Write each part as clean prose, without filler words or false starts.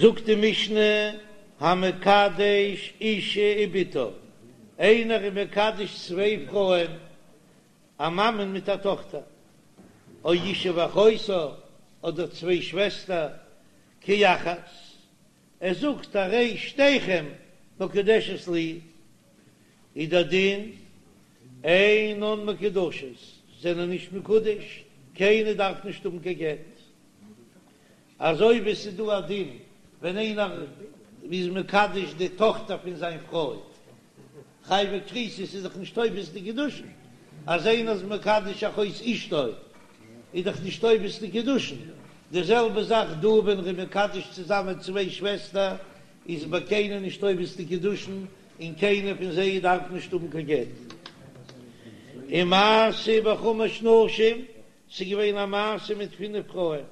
זאגט די משנה, המקדש אישה ובתה, איינער איז מקדש צוויי פרויען, א מאמען מיט א טאכטער, או אישה ואחותה, אדער צוויי שוועסטער, כאחת, ער זאגט הרי שתיכם מקודשת לי, איז דער דין אינן מקודשות, זענען נישט מקודש, קיינער דארף נישט האבן קיין גט. אזוי ווי עס איז דא א דין ווען איינער איז מקדש די טאכטער פון זיין פרוי, חייבי כריתות איז דאך נישט תופס די קידושין, אז איינער איז מקדש אחות אשתו איז דאך נישט תופס די קידושין, די זעלבע זאך דא ווען ער איז מקדש צוזאמען צוויי שוועסטער איז ביי קיינעם נישט תופס די קידושין און קיינער פון זיי דארף נישט האבן קיין גט. ומעשה בחמש נשים ס'איז געווען א מעשה מיט פינף פרויען,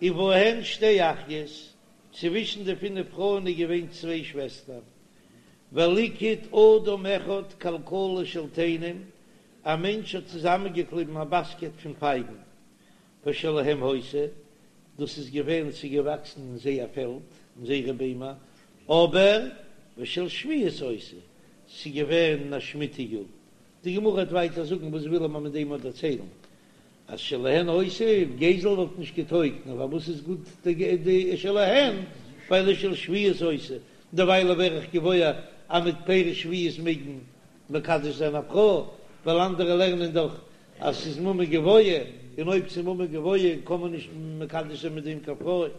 ובהן שתי אחיות, צווישן די פינף פרויען איז געווען צוויי שוועסטער, וליקט אדם אחד כלכלה של תאנים, א מענטש האט צוזאמענגעקליבן א באסקעט פון פייגן, ושלהם היתה, דאס איז געווען ס'איז געוואקסן אין זייער פעלד, אין זייערע ביימער, אבער ושל שביעית היתה, ס'איז געווען אין א שמיטה יאר, די גמרא וועט ווייטער זאגן וואס וויל ער מיר מיט דעם אט דערציילן אז שלהן היתה גזל וואלט נישט געטויגט נאר פארוואס איז גוט די שלהן ווייל של שביעית היתה דערווייל ווער איך געוואויר אז מיט פירות שביעית מעג מען מקדש זיין א פרוי ווייל אנדערע לערנען דאך אז ס'איז ממון גבוה און אויב ס'איז ממון גבוה קען מען נישט מקדש זיין מיט דעם קיין פרוי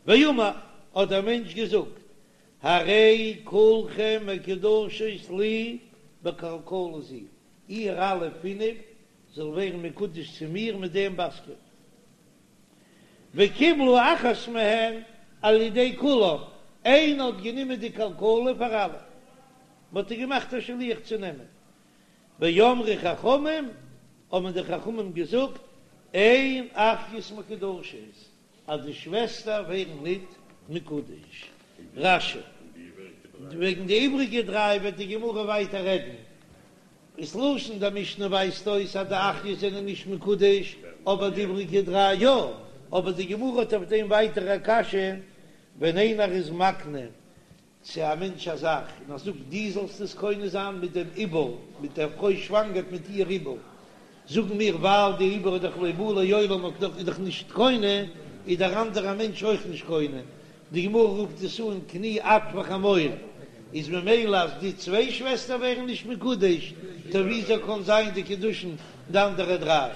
ואמר האט דער מענטש געזאגט הרי כולכם מקודשות לי בכלכלה זו, איר אלע פינף זאל ווערן מקודש צו מיר מיט דעם באסקעט. וקיבלו אחת מהן על ידי כולם, איינער האט גענומען די כלכלה פאר אלע, מען האט איר געמאכט א שליח צו נעמען. ואמרו חכמים, האבן די חכמים געזאגט, אין אחיות מקודשות, אז די שוועסטער ווערן ניט מקודש. רש"י. וועגן די איבריגע דריי וועט די גמרא ווייטער רעדן. איז לשון די משנה ווייזט אויס אז די אחיות זענען נישט מקודש, אבער די איבריגע דריי יא. אבער די גמרא האט אויף דעם ווייטער א קשיא, ווען איינער איז מקנה צו א מענטש א זאך, און ער זאגט דו זאלסט עס קונה זיין מיט דעם עובר, מיט דער פרוי שוואנגערט מיט איר עובר, זאגן מיר ווייל די עובר איז דאך לא בא לעולם און איז דאך נישט קונה, איז דער אנדערע מענטש אויך נישט קונה, די גמרא רופט עס אן קני את וחמור, איז ממילא אז די צוויי שוועסטער ווערן נישט מקודש, טא וויאזוי קען זיין די קידושין די אנדערע דריי?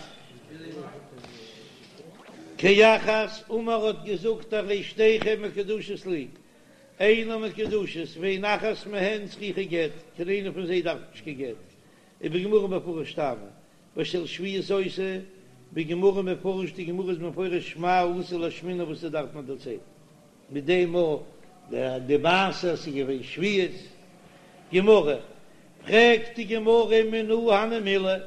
כאחת אמר האט געזאגט הרי שתיכן מקודשות לי, אינן מקודשות ואין אחת מהן צריכה גט, קיין איינע פון זיי דארף נישט קיין גט, ובגמרא מפרש טעמא, ושל שביעית היתה, בגמרא מפרש די גמרא איז מפרש מאי אתא לאשמועינן וואס עס דארף מען דערציילן מיט דעם א די מעשה אז ס'איז געווען שביעית. גמרא, פרעגט די גמרא מנא הני מילי,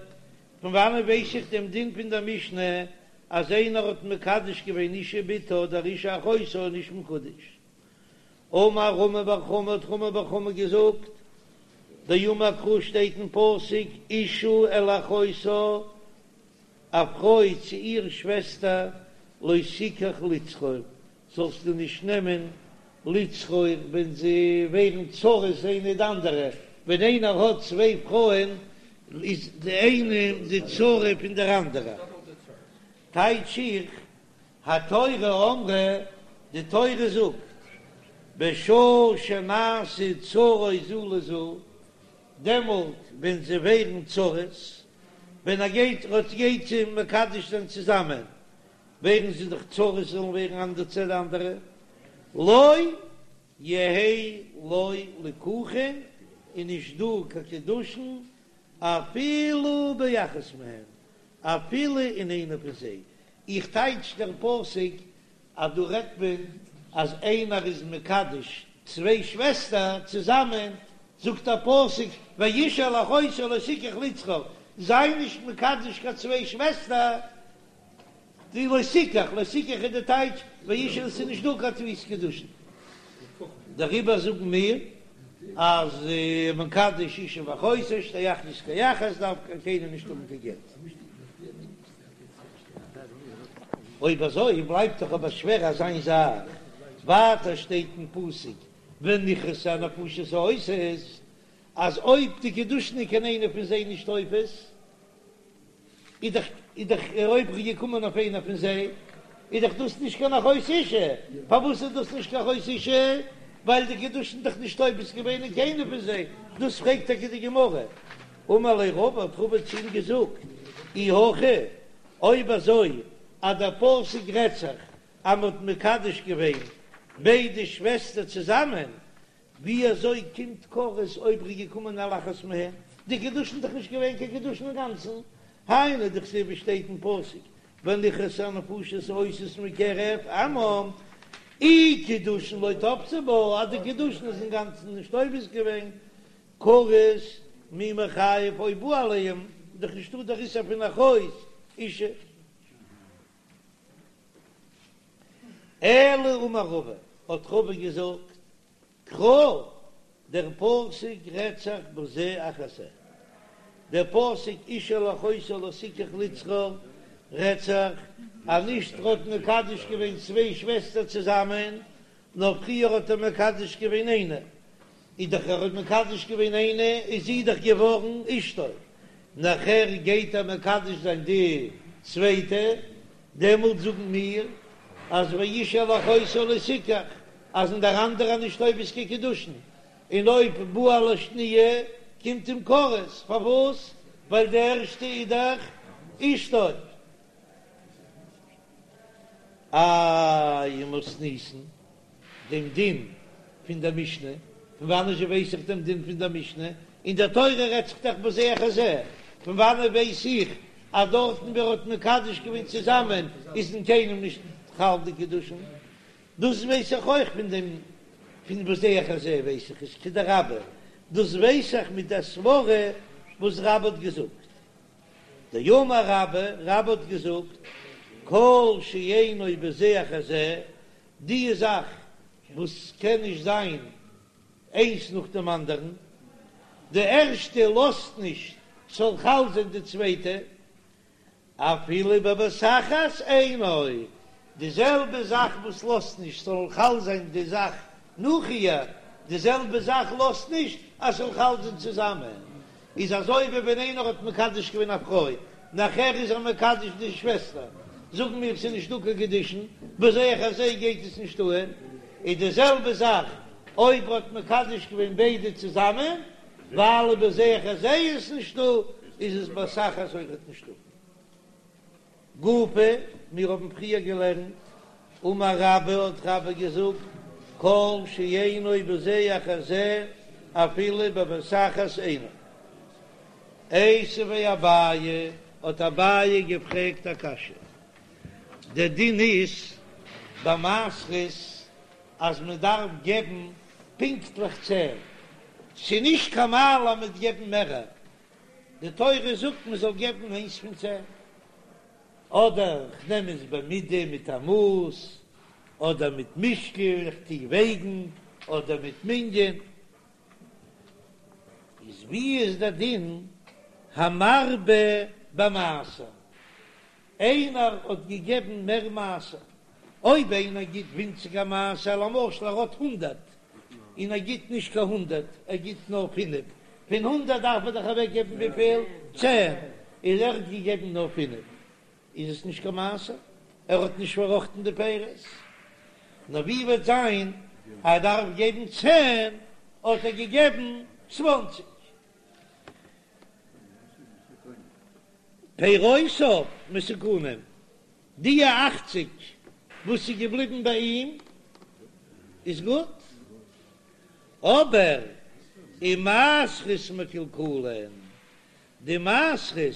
פון וואנען ווייס איך דעם דין פון דער משנה אז איינער האט מקדש געווען אישה ובתה אדער אישה ואחותה איז נישט מקודש? אמר רמי בר חמא האט רמי בר חמא געזאגט, דאמר קרא שטייט אין פסוק אשה אל אחותה, א פרוי צו איר שוועסטער, לא תקח לצרור, זאלסטו נישט נעמען לצרור ווען זיי ווערן צרות איינע די אנדערע, ווען איינער האט צוויי פרויען איז די איינע די צרה פון דער אנדערע. טייטש איך, התורה אמרה, די תורה זאגט, בשעה שנעשו צרות זו לזו, דעמאלט ווען זיי ווערן צרות, ווען ער גייט ער גייט זיי מקדש זיין צוזאמען, ווערן זיי דאך צרות זאלן ווערן אנדערע צו די אנדערע, לא יהא לו ליקוחין, איז נישט דא קיין קידושין אפילו באחת מהן, אפילו אין איינע פון זיי, איך טייטש דער פסוק אז דא רעדט מען אז איינער איז מקדש צוויי שוועסטער צוזאמען, זאגט דער פסוק ואשה אל אחותה לא תקח לצרור, זיי נישט מקדש קיין צוויי שוועסטער, די לא תקח, לא תקח איז די טייטש ואשה עס איז נישט דא קיין תפיסת קידושין, דעריבער זאגן מיר אז מקדש אישה ואחותה שתי אחיות כאחת דארף קיינער נישט האבן קיין גט. אויב אזוי בלייבט דאך אבער שווער אזא איין זאך. ווייטער שטייט אין פסוק ונכרתו הנפשות העושות, אז אויב די קידושין איז קיין איינע פון זיי נישט תופס, איז דאך איז דאך אויב ער איז געקומען אויף איינע פון זיי, איז דאך דאס נישט קיין אחות אשה, פארוואס איז דאס נישט קיין אחות אשה? ווייל די קידושין דאך נישט תופס געווען אין קיינע פון זיי, דאס פרעגט טאקע די גמרא, אמר ליה רבא האט רבא צו אים געזאגט, אי הכי, אויב אזוי אז דער פסוק רעדט זיך אז מען האט מקדש געווען ביידע שוועסטער צוזאמען, ווי אזוי קומט כרת אויב ר'איז געקומען על אחת מהן? די קידושין איז דאך נישט געווען קיין קידושין אינגאנצן, היינו דכתיב ווי שטייט אין פסוק ונכרתו הנפשות העושות מקרב עמם, אי קידושין לא תפסי בה, אז די קידושין איז אינגאנצן נישט תופס געווען, כרת מי מיחייב אויב בא עליהם, איז דאך נישטא דער איסור פון אחות אשה. אלא אמר רבא, האט רבא געזאגט, קרא, דער פסוק רעדט זיך בזה אחר זה, דער פסוק איש אל אחותו לא תקח לצרור רעדט זיך אז נישט ער האט מקדש געווען צוויי שוועסטער צוזאמען, נאר פריער האט ער מקדש געווען איינע, איז דאך ער האט מקדש געווען איינע איז זי דאך געווארן אשתו, נאכער גייט ער מקדש זיין די צווייטע, דעמאלט זאגן מיר אז ואיש אל אחותו לא תקח, אז אין דער אנדערע נישט תופס קיין קידושין, און אויב בא על השניה קומט אים כרת, פארוואס? ווייל די ערשטע איז דאך אשתו. איי ומתניתין דעם דין פון דער משנה, פון וואנען זשע ווייס איך דעם דין פון דער משנה? אין דער תורה רעדט זיך דאך בזה אחר זה, פון וואנען ווייס איך אז דארטן ווי ער האט מקדש געווען צוזאמען איז אין קיינעם נישט חל די קידושין? דאס ווייס איך אויך פון דעם פון בזה אחר זה ווייס איך עס כדרבה, דאס ווייס איך מיט דער סברה וואס רבה האט געזאגט. דאמר רבה, רבה האט געזאגט, כל שאינו בזה אחר זה, די זאך וואס קען נישט זיין איינס נאך דעם אנדערן, די ערשטע לאזט נישט ס'זאל חל זיין די צווייטע, אפילו בבת אחת אינו, די זעלבע זאך וואס לאזט נישט ס'זאל חל זיין די זאך נאך איר, די זעלבע זאך לאזט נישט אז ס'זאל חל זיין צוזאמען, איז אזוי ווי ווען איינער האט מקדש געווען א פרוי, נאכער איז ער מקדש די שוועסטער, זאגן מיר ס'איז נישטא קיין קידושין, בזה אחר זה גייט עס נישט אהן, איז די זעלבע זאך אויב ער האט מקדש געווען ביידע צוזאמען, ווייל בזה אחר זה איז עס נישטא, איז עס בבת אחת אויכעט נישטא. גופא, מיר האבן פריער געלערנט, אמר רבה האט רבה געזאגט, כל שאינו בזה אחר זה אפילו בבת אחת אינו. איתיביה אביי, האט אביי געפרעגט א קשיא, דער דין איז ביי מעשרות אז מען דארף געבן פונקטליך צען, ס'איז נישט קיין מעלה מיט געבן מערער, די תורה זאגט מען זאל געבן איינס פון צען, אדער כ'נעם עס במידה מיט א מאס, אדער מיט משקל, איך טו וועגן, אדער מיט מנין. איז ווי איז דער דין המרבה במעשר? איינער האט געגעבן מער מעשר, אויב איינער גיט ווינציגער מעשר, למשל ער האט הונדערט און ער גיט נישט קיין הונדערט, ער גיט נאר פינף, פון הונדערט דארף ער דאך אוועק געבן וויפיל? צען, איז ער האט געגעבן נאר פינף, איז עס נישט קיין מעשר, ער האט נישט פארראכטן די פירות. נאר ווי וועט זיין אז ער דארף געבן צען, האט ער געגעבן צוואנציג. פירותיו מתוקנים, די אכציג וואס איז געבליבן ביי אים איז גוט, אבער ומעשרות מקולקלין, די מעשרות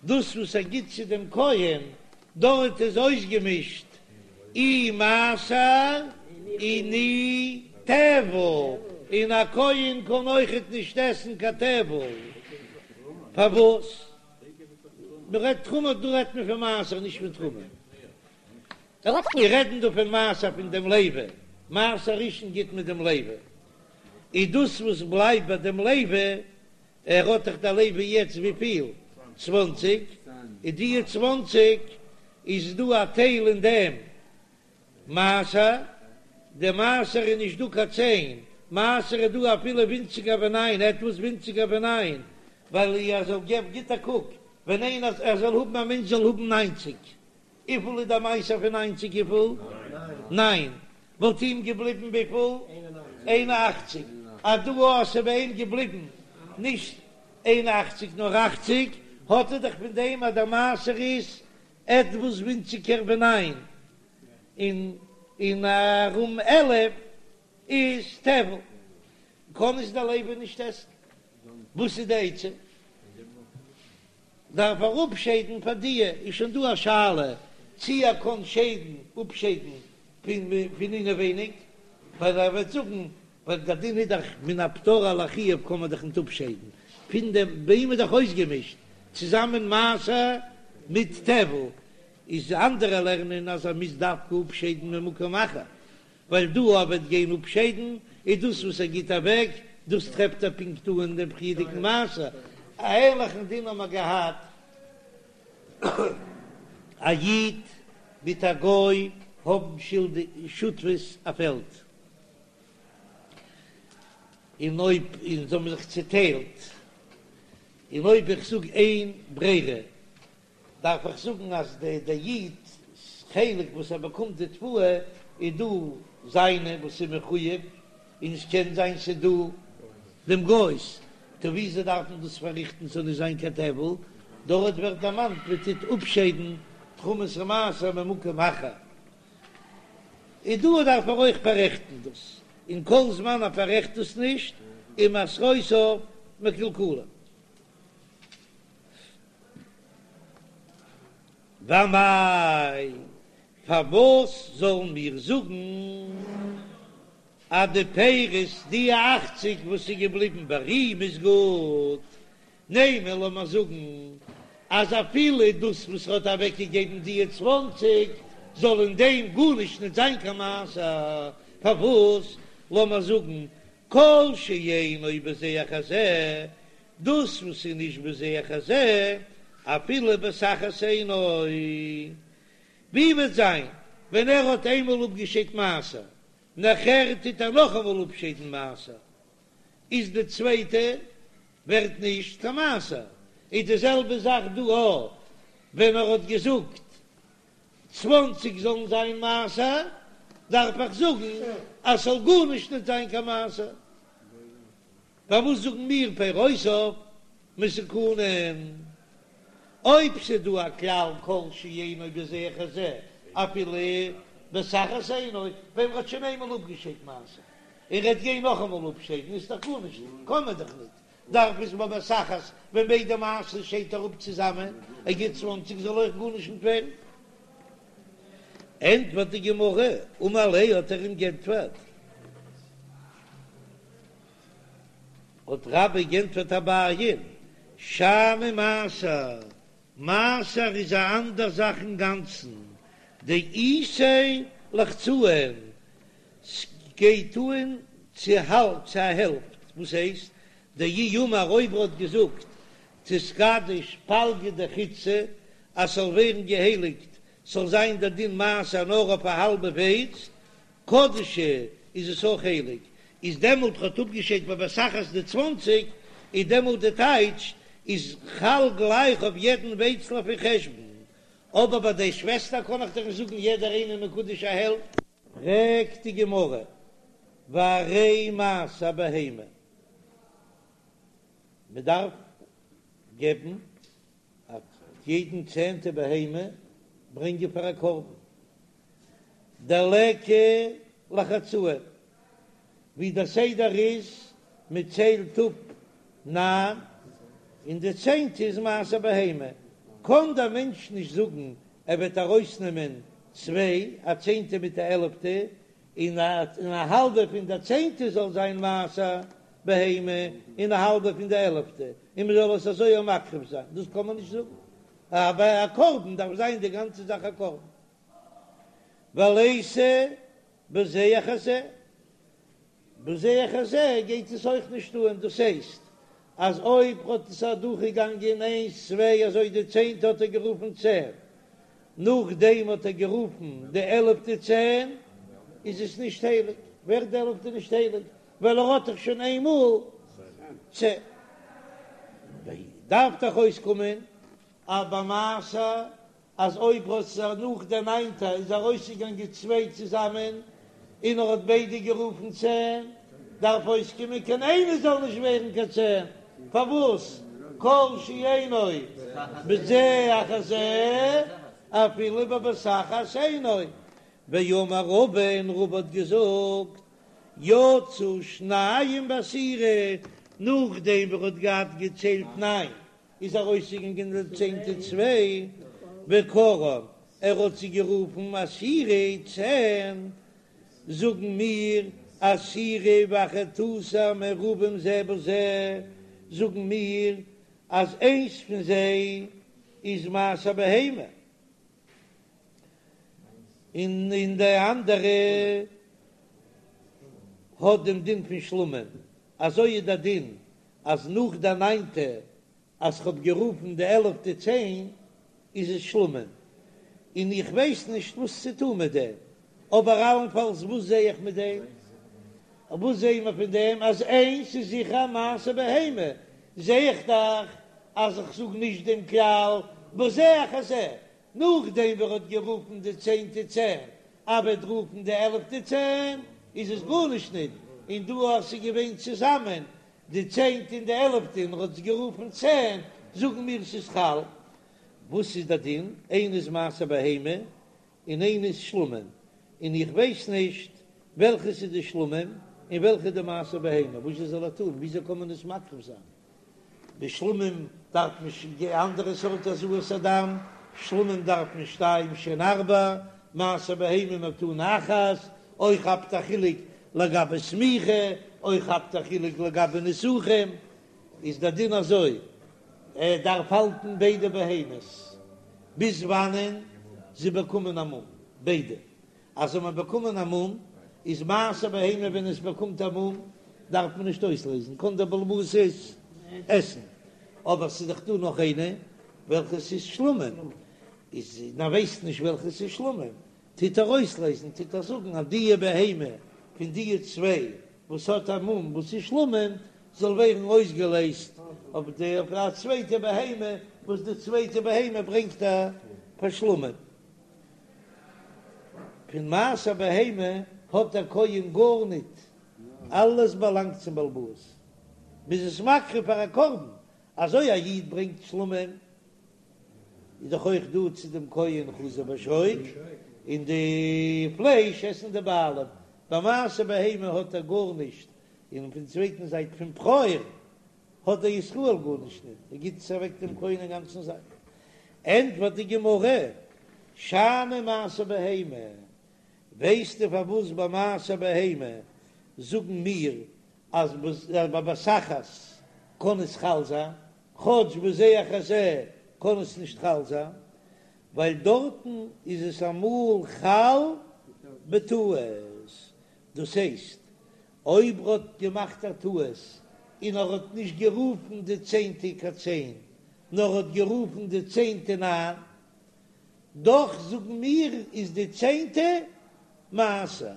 דאס וואס ער גיט צו דעם כהן, דארט איז אויסגעמישט אי מעשר און אי טבל, און א כהן קען אויכעט נישט עסן קיין טבל, פארוואס? מען רעדט תרומה, דא רעדט מען פון מעשר נישט פון תרומה, מיר רעדן דא פון מעשר פון דעם לוי, מעשר ראשון גיט מען דעם לוי, איז דאס וואס בלייבט ביי דעם לוי ער האט דאך דער לוי יעצט וויפיל? צוואנציג, איז דיע צוואנציג איז דא א טייל אין דעם. מעשר, די מעשר איז נישט דא קיין צען, מעשר איז דא אפילו ווינציגער ווי ניין, עטוואס ווינציגער ווי ניין, ווייל ער זאל געבן, גיט א קוק, ווען איינער ער זאל האבן א מענטש זאל האבן ניינציג, וויפיל איז דער מעשר פון ניינציג וויפיל? ניין, וואלט אים געבליבן וויפיל? איין און אכציג, אז דא אז ס'איז ביי אים געבליבן נישט איין און אכציג נאר אכציג, האט ער דאך פון דעם אז דער מעשר איז עטוואס ווינציגער ווי ניין, און און ארום 11 איז טבל, קען עס דער לוי נישט עסן, וואס איז די עצה? דארף ער אפשיידן פאר דיע, איז שוין דא א שאלה צי ער קען שיידן אפשיידן פון פון אינעווייניג, ווייל ער וועט זאגן ווייל דער דין איז דאך מן הפטור על החיוב קען מען דאך ניט אפשיידן פון דעם, ביי אים איז דאך אויסגעמישט צוזאמען מעשר מיט טבל, איז אנדערע לערנען אז ער מוז דווקא אפשיידן ממקום אחר, ווייל דא ער וועט גיין אפשיידן איז דאס וואס ער גיט אוועק, דאס טרעפט ער פונקט אן אין דעם פריערדיגן מעשר. א ענליכן דין האבן מיר געהאט, א איד מיט א גוי האבן שותפות א פעלד, און אויב און זיי האבן זיך צוטיילט, און אויב איך זאג אין ברירה דארף איך זאגן אז די די איד'ס חלק וואס ער באקומט די תבואה איז דא זיינע וואס איז מחויב, און עס קען זיין ס'איז דא דעם גוי'ס, טא וויאזוי דארף מען דאס פארריכטן ס'זאל נישט זיין קיין טבל, דארט ווערט דערמאנט מען טוט אפשיידן תרומת ומעשר ממקום אחר, און דא דארף ער אויך פאררעכטן דאס, און כל זמן ער פאררעכט דאס נישט איז מעשרותיו מקולקלין. ואמאי, פארוואס זאלן מיר זאגן אז די פירות, די אכציג וואס איז געבליבן ביי אים איז גוט? נימא, לאמיר זאגן אז אפילו דאס וואס ער האט אוועקגעגעבן די צוואנציג, זאל אין דעם גארנישט נישט זיין קיין מעשר. פארוואס לאמיר זאגן כל שאינו בזה אחר זה, דאס וואס איז נישט בזה אחר זה, אפילו בבת אחת אינו. ווי וועט זיין ווען ער האט איינמאל אפגעשיידט מעשר, נאכער טוט ער נאכאמאל אפשיידן מעשר, איז די צווייטע ווערט נישט קיין מעשר. איז די זעלבע זאך דא אויך, ווען ער האט געזאגט צוואנציג זאלן זיין מעשר, דארף איך זאגן אז ס'זאל גארנישט נישט זיין קיין מעשר. פארוואס זאגן מיר פירותיו מתוקנין? אויב ס'איז דא א כלל כל שאינו בזה אחר זה אפילו בבת אחת אינו, ווען מ'האט שוין איינמאל אפגעשיידט מעשר און ר'עט גיין נאכאמאל אפשיידן איז דאך גארנישט, קען מען דאך ניט, דארף עס בבת אחת ווען ביידע מעשרות שיידט ער אפ צוזאמען, ער גיט צוואנציג זאל אויך גארנישט ניט ווערן. ענטפערט די גמרא, אמר ליה האט ער אים גענטפערט. האט רבה גענטפערט אביי'ן, שאני מעשר, מעשר איז א אנדער זאך אינגאנצן, דאיתיה לחצאין, ס'גייט אן צו האלב, צו א העלפט, וואס הייסט, דאי אמר אויב ער האט געזאגט תתקדש פלגא דחיטתא אז ס'זאל ווערן געהייליגט, ס'זאל זיין דער דין מעשר נאר אויף א האלבע ווייץ, קדשה איז עס אויך הייליג, איז דעמאלט האט אפגעשיידט בבת אחת די צוואנציג, איז דעמאלט די טייטש איז חל גלייך אויף יעדן ווייצל אויף איר חשבון, אבער ביי די שוועסטער קען איך דאך נישט זאגן יעדער איינער מקודש א העלפט. פרעגט די גמרא, והרי מעשר בהמה, מען דארף געבן א יעדן צענטע בהמה ברענגען פאר א קרבן, דליכא לחצאין, ווי דער סדר איז, מען ציילט אפ ניין, און די צענטע איז מעשר בהמה, קען דער מענטש נישט זאגן ער וועט ארויסנעמען צוויי, א צענטע מיט א עלעפטע, און א האלבע פון דער צענטע זאל זיין מעשר בהמה, און א האלבע פון די עלעפטע, און מען זאל עס אזוי אויך מקריב זיין, דאס קען מען נישט זאגן, אבער א קרבן דארף זיין די גאנצע זאך א קרבן. וליתא בזה אחר זה, בזה אחר זה גייט עס אויך נישט אן, דאס הייסט אז אויב האט עס אדורכגעגאנגען איינס צוויי אזוי די צענטע האט ער גערופן צען. נאכדעם האט ער גערופן די עלעפטע צען, איז עס נישט הייליג, ווערט די עלעפטע נישט הייליג, ווייל ער האט דאך שוין איינמאל צען. דארף דאך אויסקומען אז ביי מעשר אז אויב האט זיך נאך דער ניינטע איז ארויסגעגאנגען צוויי צוזאמען און ער האט ביידע גערופן צען, דארף אויסקומען קיין איינער זאל נישט ווערן קיין צען, פארוואס כל שאינו בזה אחר זה אפילו בבת אחת אינו, ואמר רבא און רבא האט געזאגט יצאו שניים בעשירי, נאכדעם ווי ער האט געהאט געציילט ניין איז ארויסגעגאנגען די צענטע צוויי, וקראן, ער האט זיי גערופן עשירי צען, זאגן מיר עשירי ואחד עשר מעורבים זה בזה, זאגן מיר אז איינס פון זיי איז מעשר בהמה, און און די אנדערע האט דעם דין פון שלמים, אזוי איז דער דין אז נאך די ניינטע אז כ'האב גערופן די עלעפטע צען איז עס שלמים, און איך ווייס נישט וואס צו טון מיט דעם, אבער אלנפאלס וואס זע איך מיט דעם? וואס זעען מיר פון דעם? אז איינס איז זיכער מעשר בהמה, זע איך דאך אז איך זאג נישט דעם כלל בזה אחר זה, נאכדעם ווי ער האט גערופן די צענטע צען, אבער ער וועט רופן די עלעפטע צען, איז עס גארנישט ניט, און דא אז ס'איז געווען צוזאמען די צענטע און די עלעפטע און ער האט עס גערופן צען, זאגן מיר ס'איז חל. וואס איז די דין? איינע איז מעשר בהמה און איינע איז שלמים, און איך ווייס נישט וועלכעס איז די שלמים און וועלכע איז די מעשר בהמה, וואס זאל ער טון? וויאזוי קען מען עס מקריב זיין? בשלמים דארף מען שוין אנדערע סארט הזאת הדם, שלמים דארף מען שתיים שהן ארבע, מעשר בהמה מתנה אחת, אויך כאפט א חילוק לגבי סמיכה, אויך כאפט א חילוק לגבי נסכים, איז דער דין אזוי, ער דארף האלטן ביידע בהמות ביז וואנען זיי באקומען א מום, ביידע. אז זיי האבן באקומען א מום, איז מעשר בהמה ווען עס באקומט א מום דארף מען נישט אויסלעזן, קען דער בעל הבית עס עסן, אבער ס'איז דאך דא נאך איינע וועלכע ס'איז שלמים, איז מען ווייסט נישט וועלכע ס'איז שלמים, טוט ער אויסלעזן, טוט ער זאגן אז דיע בהמה פון דיע צוויי וואס האט א מום וואס איז שלמים זאל ווערן אויסגעלעזט אויף די אויף א צווייטע בהמה וואס די צווייטע בהמה ברענגט ער פאר שלמים. פון מעשר בהמה האט דער כהן גארניט, אלעס באלאנגט צום בעל הבית, מ'איז עס מקריב פאר א קרבן, אזוי א איד ברענגט שלמים איז דאך אויך דא צו דעם כהן חזה ושוק, און די פלייש עסן די בעלים, ביי מעשר בהמה האט ער גארנישט, און פון צווייטן זייט פון בכור האט דער ישראל גארנישט ניט, ער גיט עס אוועק דעם כהן אינגאנצן זאך. ענטפערט די גמרא, שאני מעשר בהמה, ווייסטו פארוואס ביי מעשר בהמה זאגן מיר אז בבת אחת קען עס חל זיין, כאטש בזה אחר זה קען עס נישט חל זיין, ווייל דארטן איז עס אמאל חל בטעות, דאס הייסט אויב ר'האט געמאכט א טעות און ער האט נישט גערופן די צענטע קיין צען, נאר האט גערופן די צענטע ניין, דאך זאגן מיר איז די צענטע מעשר.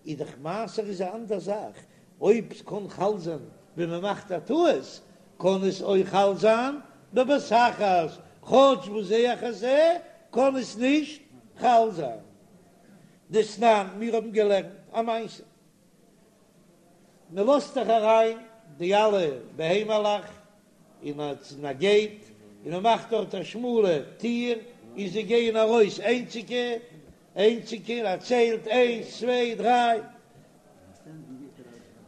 איז דאך מעשר איז א אנדער זאך, אויב ס'קען חל זיין ווען מ'מאכט א טעות, קען עס אויך חל זיין בבת אחת, כאטש בזה אחר זה קען עס נישט חל זיין. דתנן, מיר האבן געלערנט א מעשה. מען לאזט דאך אריין די אלע בהמה'לעך אין א געיט, און מען מאכט דארט א שמאלע טיר, און זיי גייען ארויס איינציגע, איינציגע, ער ציילט איינס צוויי דריי,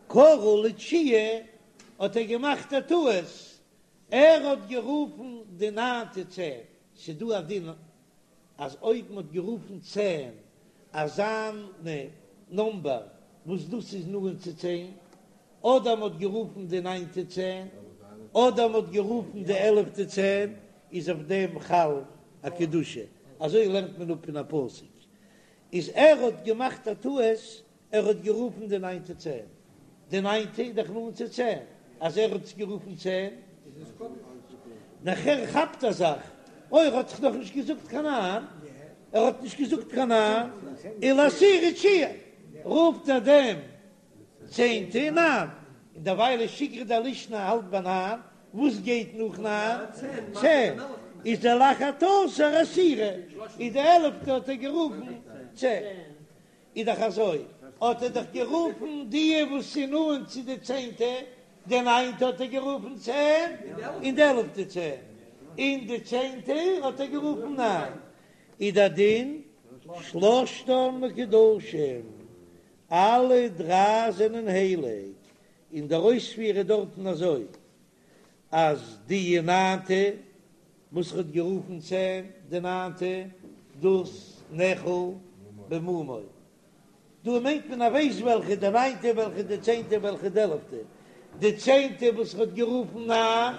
קרא לתשיעי האט ער געמאכט א טעות, ער האט גערופן די ניינטע צען, ס'דא א דין אז אויב מ'האט גערופן צען אזאנע נומבער וואס דאס איז נאנט צו צען, אדער מ'האט גערופן די ניינטע צען, אדער מ'האט גערופן די עלעפטע צען, איז אויף דעם חל א קדושה, אזוי לערנט מען אפ פון א פסוק, איז ער האט געמאכט א טעות ער האט גערופן די ניינטע צען, די ניינטע איז דאך נאנט צו צען, אז ער האט עס גערופן צען, נאכער כאפט ער זיך, אוי ער האט דאך נאכנישט געזאגט קיין ניין. ער האט נישט געזאגט קיין ניין, ולעשירי תשיעי, רופט ער דעם צענטע ניין, און דערווייל איז שיגרא דלישנא האלט ביי ניין, וואס גייט נאך ניין? צען, איז דער לאחד עשר עשירי, איז די עלעפטע האט ער גערופן צען. איז דאך אזוי, האט ער דאך גערופן די וואס איז נאנט צו די צענטע, די ניינטע האט ער גערופן צען, און די עלעפטע צען, און די צענטע האט ער גערופן ניין, איז דער דין שלשתן מקודשים, אלע דריי זענען הייליג, און דער אויספיר איז דארטן אזוי, אז די ניינטע וואס ער האט גערופן צען, די ניינטע, דאס נאכל במומו. דא מיינט מען ער ווייסט וועלכע די ניינטע, וועלכע די צענטע, וועלכע די עלעפטע. די צענטע וואס ער האט גערופן ניין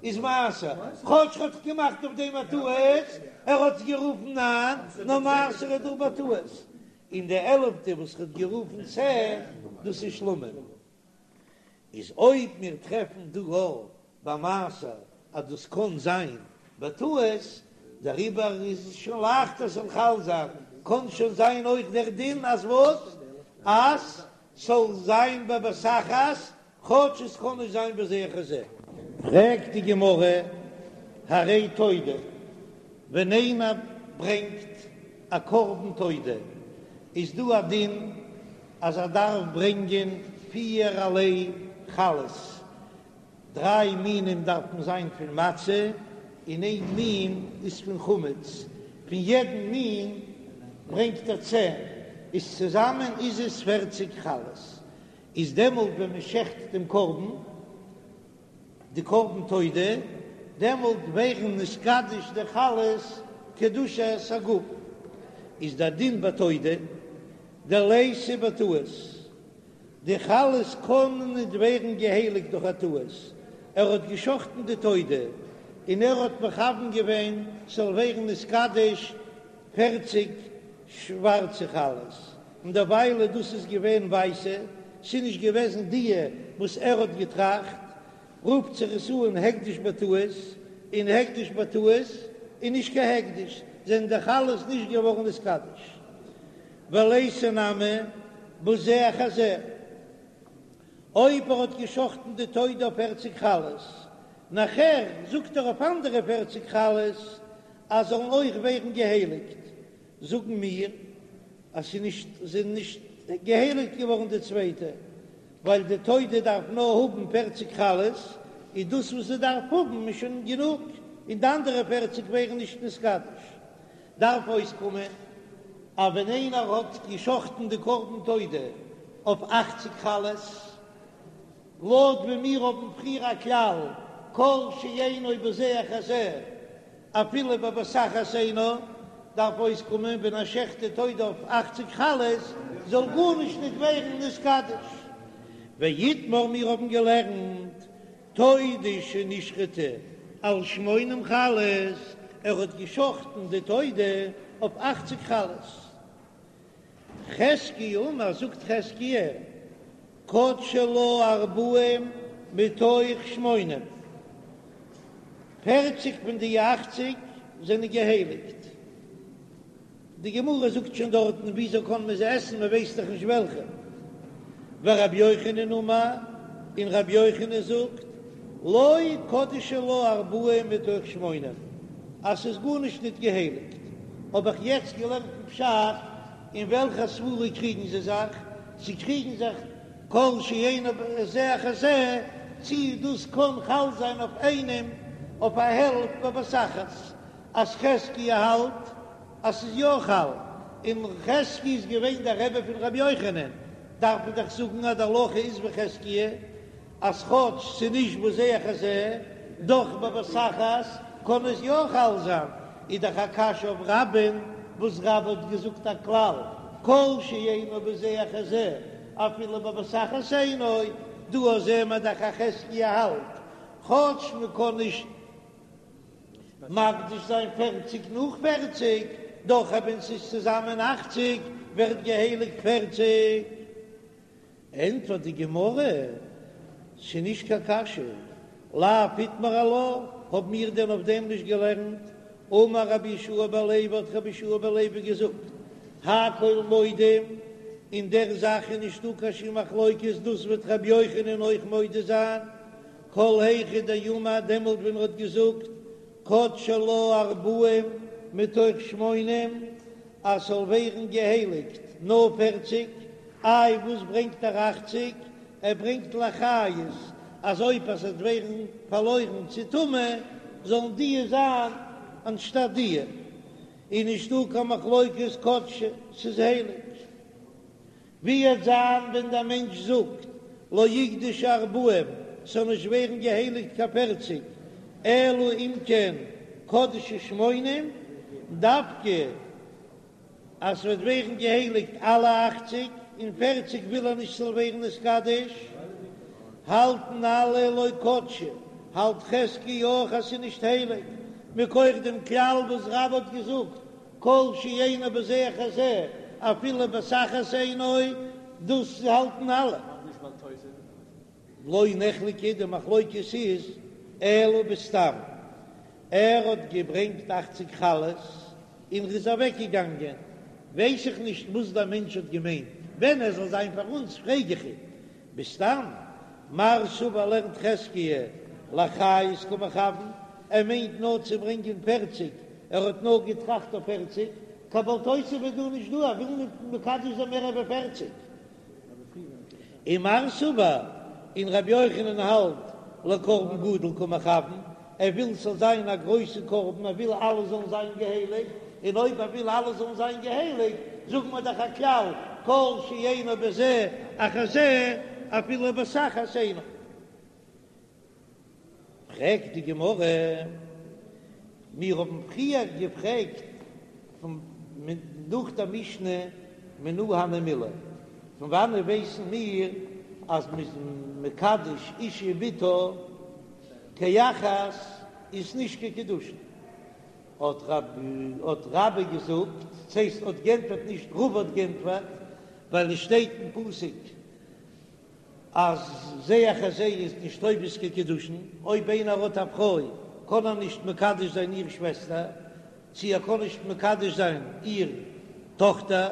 איז מעשר, כאטש ער האט געמאכט אויף דעם א טעות, ער האט עס גערופן ניין, נאר מעשר איז דא בטעות. און די עלעפטע וואס ער האט גערופן צען, דאס איז שלמים. איז אויב מיר טרעפן דא אויך ביי מעשר אז דאס קען זיין בטעות, דעריבער איז עס שוין לייכטער ס'זאל חל זיין, קען שוין זיין אויך דער דין אז וואס? אז ס'זאל זיין בבת אחת, כאטש עס קען נישט זיין בזה אחר זה. פרעגט די גמרא, הרי תודה, ווען איינער ברענגט א קרבן תודה, איז דא א דין אז ער דארף ברענגען פירערליי חלות, דריי מינים דארפן זיין פון מצה און איין מין איז פון חמץ, פון יעדן מין ברענגט ער צען, איז צוזאמען איז עס פערציג חלות, איז דעמאלט ווען מען שעכט דעם קרבן, די קרבן תודה, דעמאלט ווערן נתקדש די חלות קדושת הגוף, איז דער דין ביי תודה דליתא בטעות, די חלות קענען ניט ווערן געהייליגט דורך א טעות, ער האט געשחטן די תודה און ער האט מכוון געווען ס'זאל ווערן נתקדש פערציג שווארצע חלות, און דערוויילע דאס איז געווען ווייסע, ס'איז נישט געוועזן דיע וואס ער האט געטראכט, רופט זיך עס אן הקדש בטעות, און הקדש בטעות איז נישט קיין הקדש, זענען די חלות נישט געווארן נתקדש. וליתא נמי בזה אחר זה, אויב ער האט געשחטן די תודה אויף פערציג חלות, נאכער זאגט ער אויף אנדערע פערציג חלות אז זאלן אויך ווערן געהייליגט, זאגן מיר אז ס'איז נישט זענען נישט געהייליגט געווארן די צווייטע, ווייל די תודה דארף נאר האבן פערציג חלות, איז דאס וואס זי דארף האבן איז שוין גענוג, און די אנדערע פערציג ווערן נישט נתקדש. דארף אויסקומען אז ווען איינער האט געשחטן די קרבן תודה אויף אכציג חלות, לויט ווי מיר האבן פריער א כלל כל שאינו בזה אחר זה אפילו בבת אחת אינו, דארף אויסקומען ווען ער שעכט די תודה אויף אכציג חלות זאל גארנישט נישט ווערן נתקדש. ואיתמר מיר האבן געלערנט תודה שנשחטה על שמונים חלות, ער האט געשחטן די תודה אויף אכציג חלות. חזקיה אמר, זאגט חזקיה, קדשו לה ארבעים מתוך שמונים, פערציג פון די אכציג זענען געהייליגט. די גמרא זאגט שוין דארטן וויאזוי קען מען זיי עסן מען ווייסט דאך נישט וועלכע. ורבי יוחנן אמר, און רבי יוחנן זאגט, לא קדשו לה ארבעים מתוך שמונים, אז ס'איז גארנישט ניט געהייליגט. האב איך יעצט געלערנט אין פשט, אין וועלכע סברא קריגן זיי זיך? זיי קריגן זיך כל שאינו בזה אחר זה, צי דאס קען חל זיין אויף איינעם אויף א העלפט בבת אחת, אז חזקיה האלט אז ס'איז יא חל, און חזקיה איז געווען דער רבי פון רבי יוחנן, דארף מען דאך זאגן אז די הלכה איז ווי חזקיה, אז כאטש ס'איז נישט בזה אחר זה, דאך בבת אחת קען עס יא חל זיין, איז דאך א קשיא אויף רבה'ן, וואס רבה האט געזאגט א כלל, כל שאינו בזה אחר זה, אפילו בבת אחת אינו, דא זעהן מיר דאך אז חזקיה האלט, כאטש מ'קען נישט מקדיש זיין פערציג נאך פערציג, דאך אויב ס'איז צוזאמען אכציג ווערט געהייליגט פערציג. ענטפערט די גמרא, ס'איז נישט קיין קשיא, לאו איתמר עלה, האבן מיר דען אויף דעם נישט געלערנט? אמר רבי יהושע בן לוי האט רבי יהושע בן לוי געזאגט, הכל מודים, אין דער זאך איז נישטא קיין שום מחלוקת, דאס וועט רבי יוחנן אויך מודה זיין, כל היכא דאמר דעמאלט ווען ער האט געזאגט קדשי לה ארבעים מתוך שמונים אז ס'זאל ווערן געהייליגט נאר פערציג, איי וואס ברענגט ער אכציג? ער ברענגט לאחריות אז אויב עס וועט ווערן פארלוירן צו טומאה זאלן דיע זיין אנשטאט דיע, איז נישטא קיין מחלוקת קדשי, ס'איז הייליג. ווי וועט זיין ווען דער מענטש זאגט לא יקדשו ארבעים, ס'זאל נישט ווערן געהייליגט קיין פערציג, אלא אם כן קדשו שמונים, דווקא אז ס'וועט ווערן געהייליגט אלע אכציג, און פערציג וויל ער נישט ס'זאל ווערן נתקדש, האלטן אלע לא קדשי, האלט חזקיה אויך אז ס'איז נישט הייליג, מכח דעם כלל וואס רבה האט געזאגט כל שאינו בזה אחר זה אפילו בבת אחת אינו, דאס האלטן אלע. לא נחלקו, די מחלוקת איז אלא בסתם, ער האט געברענגט אכציג חלות און ר'איז אוועק געגאנגען, ווייס איך נישט וואס דער מענטש האט געמיינט, ווען ער זאל זיין פאר אונז פרעג איך אים בסתם, מר סבר לערנט חזקיה לאחריות קא מכוון, ער מיינט נאר צו ברענגען פערציג, ער האט נאר געטראכט אויף פערציג, קיין בל תוסיף איז דא נישט דא, ער וויל ניט מקדש זיין מער ווי פערציג. ומר סבר, און רבי יוחנן האלט לקרבן גדול קא מכוון, ער וויל ס'זאל זיין א גרויסע קרבן, ער וויל אלע זאלן זיין געהייליגט, און אויב ער וויל אלע זאלן זיין געהייליגט, זאגן מיר דאך א כלל, כל שאינו בזה אחר זה, אפילו בבת אחת אינו. פרעגט די גמרא, מיר האבן פריער געפרעגט פון נאך דער משנה מנא הני מילי, פון וואנעט ווייסן מיר אז מ'איז מקדש אשה ובתה כאחת איז נישט קיין קידושין? האט רבה געזאגט, ס'הייסט האט גענטפערט נישט רבא האט גענטפערט, ווייל עס שטייט אין פסוק אז זה אחר זה איז נישט תופס קיין קידושין, אויב איינער האט א פרוי קען ער נישט מקדש זיין איר שוועסטער, צי ער קען נישט מקדש זיין איר טאכטער,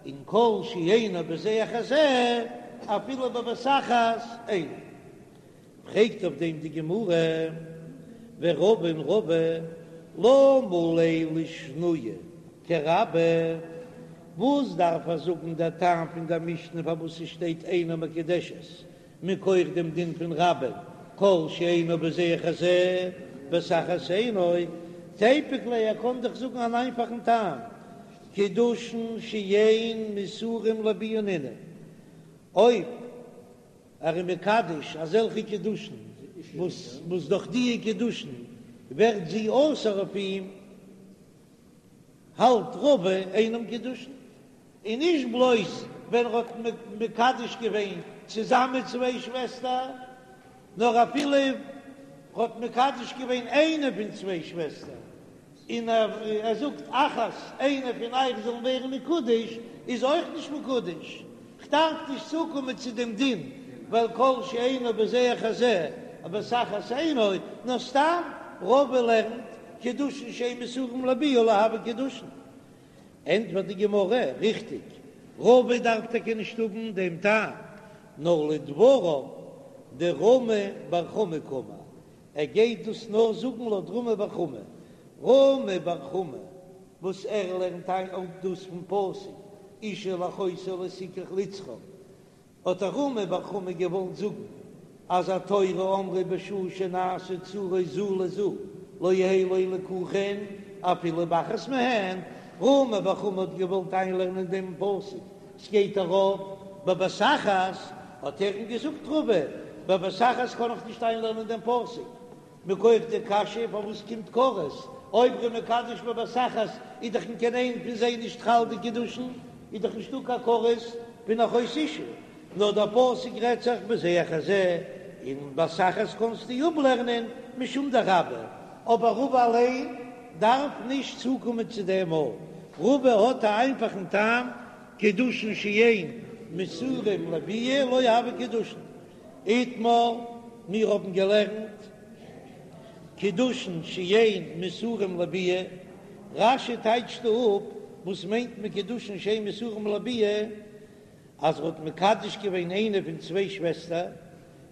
און כל שאינו בזה אחר זה אפילו בבת אחת אינו. פרעגט אויף דעם די גמרא, ורבא און רבא למה ליה לשנויי כרבה, וואס דארף ער זאגן דער טעם פון דער משנה פארוואס עס שטייט אינה מקודשת מכח דעם דין פון רבה כל שאינו בזה אחר זה בבת אחת אינו, תיפוק ליה ער קען דאך זאגן אן איינפאכן טעם, קידושין שאין מסורים לביאה נינהו, אויב ער איז מקדש אזעלכע קידושין וואס וואס דורך דיע קידושין ווערט זי אסור אויף אים, האלט רבא אינם קידושין, און נישט בלויז ווען ער האט מקדש געווען צוזאמען צוויי שוועסטער, נאר אפילו ער האט מקדש געווען איינע פון צוויי שוועסטער, און ער זאגט אחת, איינע פון אייך זאלן ווערן מקודש, איז אויך נישט מקודש, כ'דארף נישט צוקומען צו דעם דין, ווייל כל שאינו בזה אחר זה בבת אחת אינו, נאר סתם רבא לערנט קידושין שאין מסורים לביאה לא הוו קידושין. ענטפערט די גמרא, ריכטיג, רבא דארף טאקע נישט האבן דעם טעם, נאר לדבריו דרמי בר חמא קאמר, ער גייט דאס נאר זאגן לויט רמי בר חמא, רמי בר חמא וואס ער לערנט איין אפ דאס פון פסוק אשה אל אחותה לא תקח לצרור, האט רמי בר חמא געוואלט זאגן אז התורה אמרה בשעה שנעשו צרות זו לזו לא יהא לו ליקוחין אפילו באחת מהן, רמי בר חמא האט געוואלט איינלערנען דעם פסוק ס'גייט ארויף בבת אחת, האט ער אים געזאגט רבא, בבת אחת קען איך נישט איינלערנען דעם פסוק, מכח די קשיא פארוואס קומט כרת, אויב ר'איז מקדש בבת אחת איז דאך אין קיין איין פון זיי נישט חל די קידושין, איז דאך נישטא קיין כרת פון אחות אשה, נאר דער פסוק רעדט זיך בזה אחר זה, און בבת אחת קענסטו אפלערנען משום דרבה, אבער רבא אליין דארף נישט צוקומען צו דעם מאל, רבא האט א איינפאכן טעם, קידושין שאין מסורים לביאה לא הוו קידושין. איתמר, מיר האבן געלערנט. קידושין שאין מסורים לביאה, רש"י טייטשט דא אפ וואס מיינט מען קידושין שאין מסורים לביאה, אז ער האט מקדש געווען איינע פון צוויי שוועסטער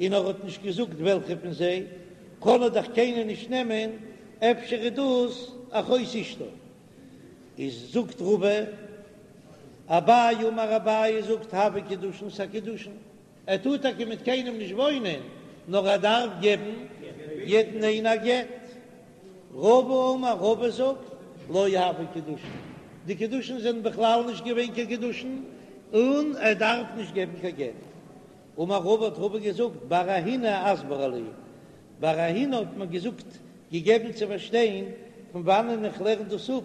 און ער האט נישט געזאגט וועלכע פון זיי, קען ער דאך קיינער נישט נעמען, אפשר איז דאס אחות אשתו. איז זאגט רבא, אביי אמר אביי זאגט הוו קידושין ס'א קידושין, ער טאר טאקע מיט קיינעם נישט וואוינען, נאר ער דארף געבן יעדן איינע א גט. רבא אמר רבא זאגט לא הוו קידושין, די קידושין זענען בכלל נישט געווען קיין קידושין, און ער דארף נישט געבן קיין גט. אמר רבא האט רבא געזאגט בר אהינא אסברה לי, בר אהינא האט מיר געזאגט געגעבן צו פארשטיין פון וואנען איך לערן דאס אפ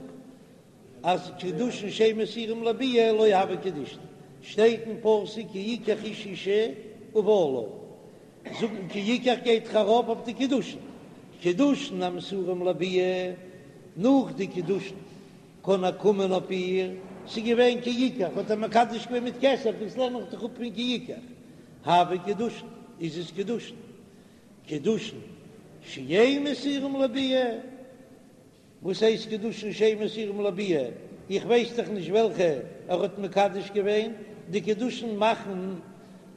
אז קידושין שאין מסורים לביאה לא הוו קידושין, שטייט אין פסוק כי יקח איש אשה ובעלה, זאגן כי יקח גייט דאך ארויף אויף די קידושין, קידושין המסורים לביאה, נאך די קידושין קען ער קומען אויף איר, ס'איז געווען כי יקח, האט ער מקדש געווען מיט כסף, דאס לערן איך דאך אפ פון כי יקח, הוו קידושין, איז עס קידושין, קידושין שאין מסורים לביאה. וואס הייסט קידושין שאין מסורים לביאה? איך ווייס דאך נישט וועלכע ער האט מקדש געווען, די קידושין מאכן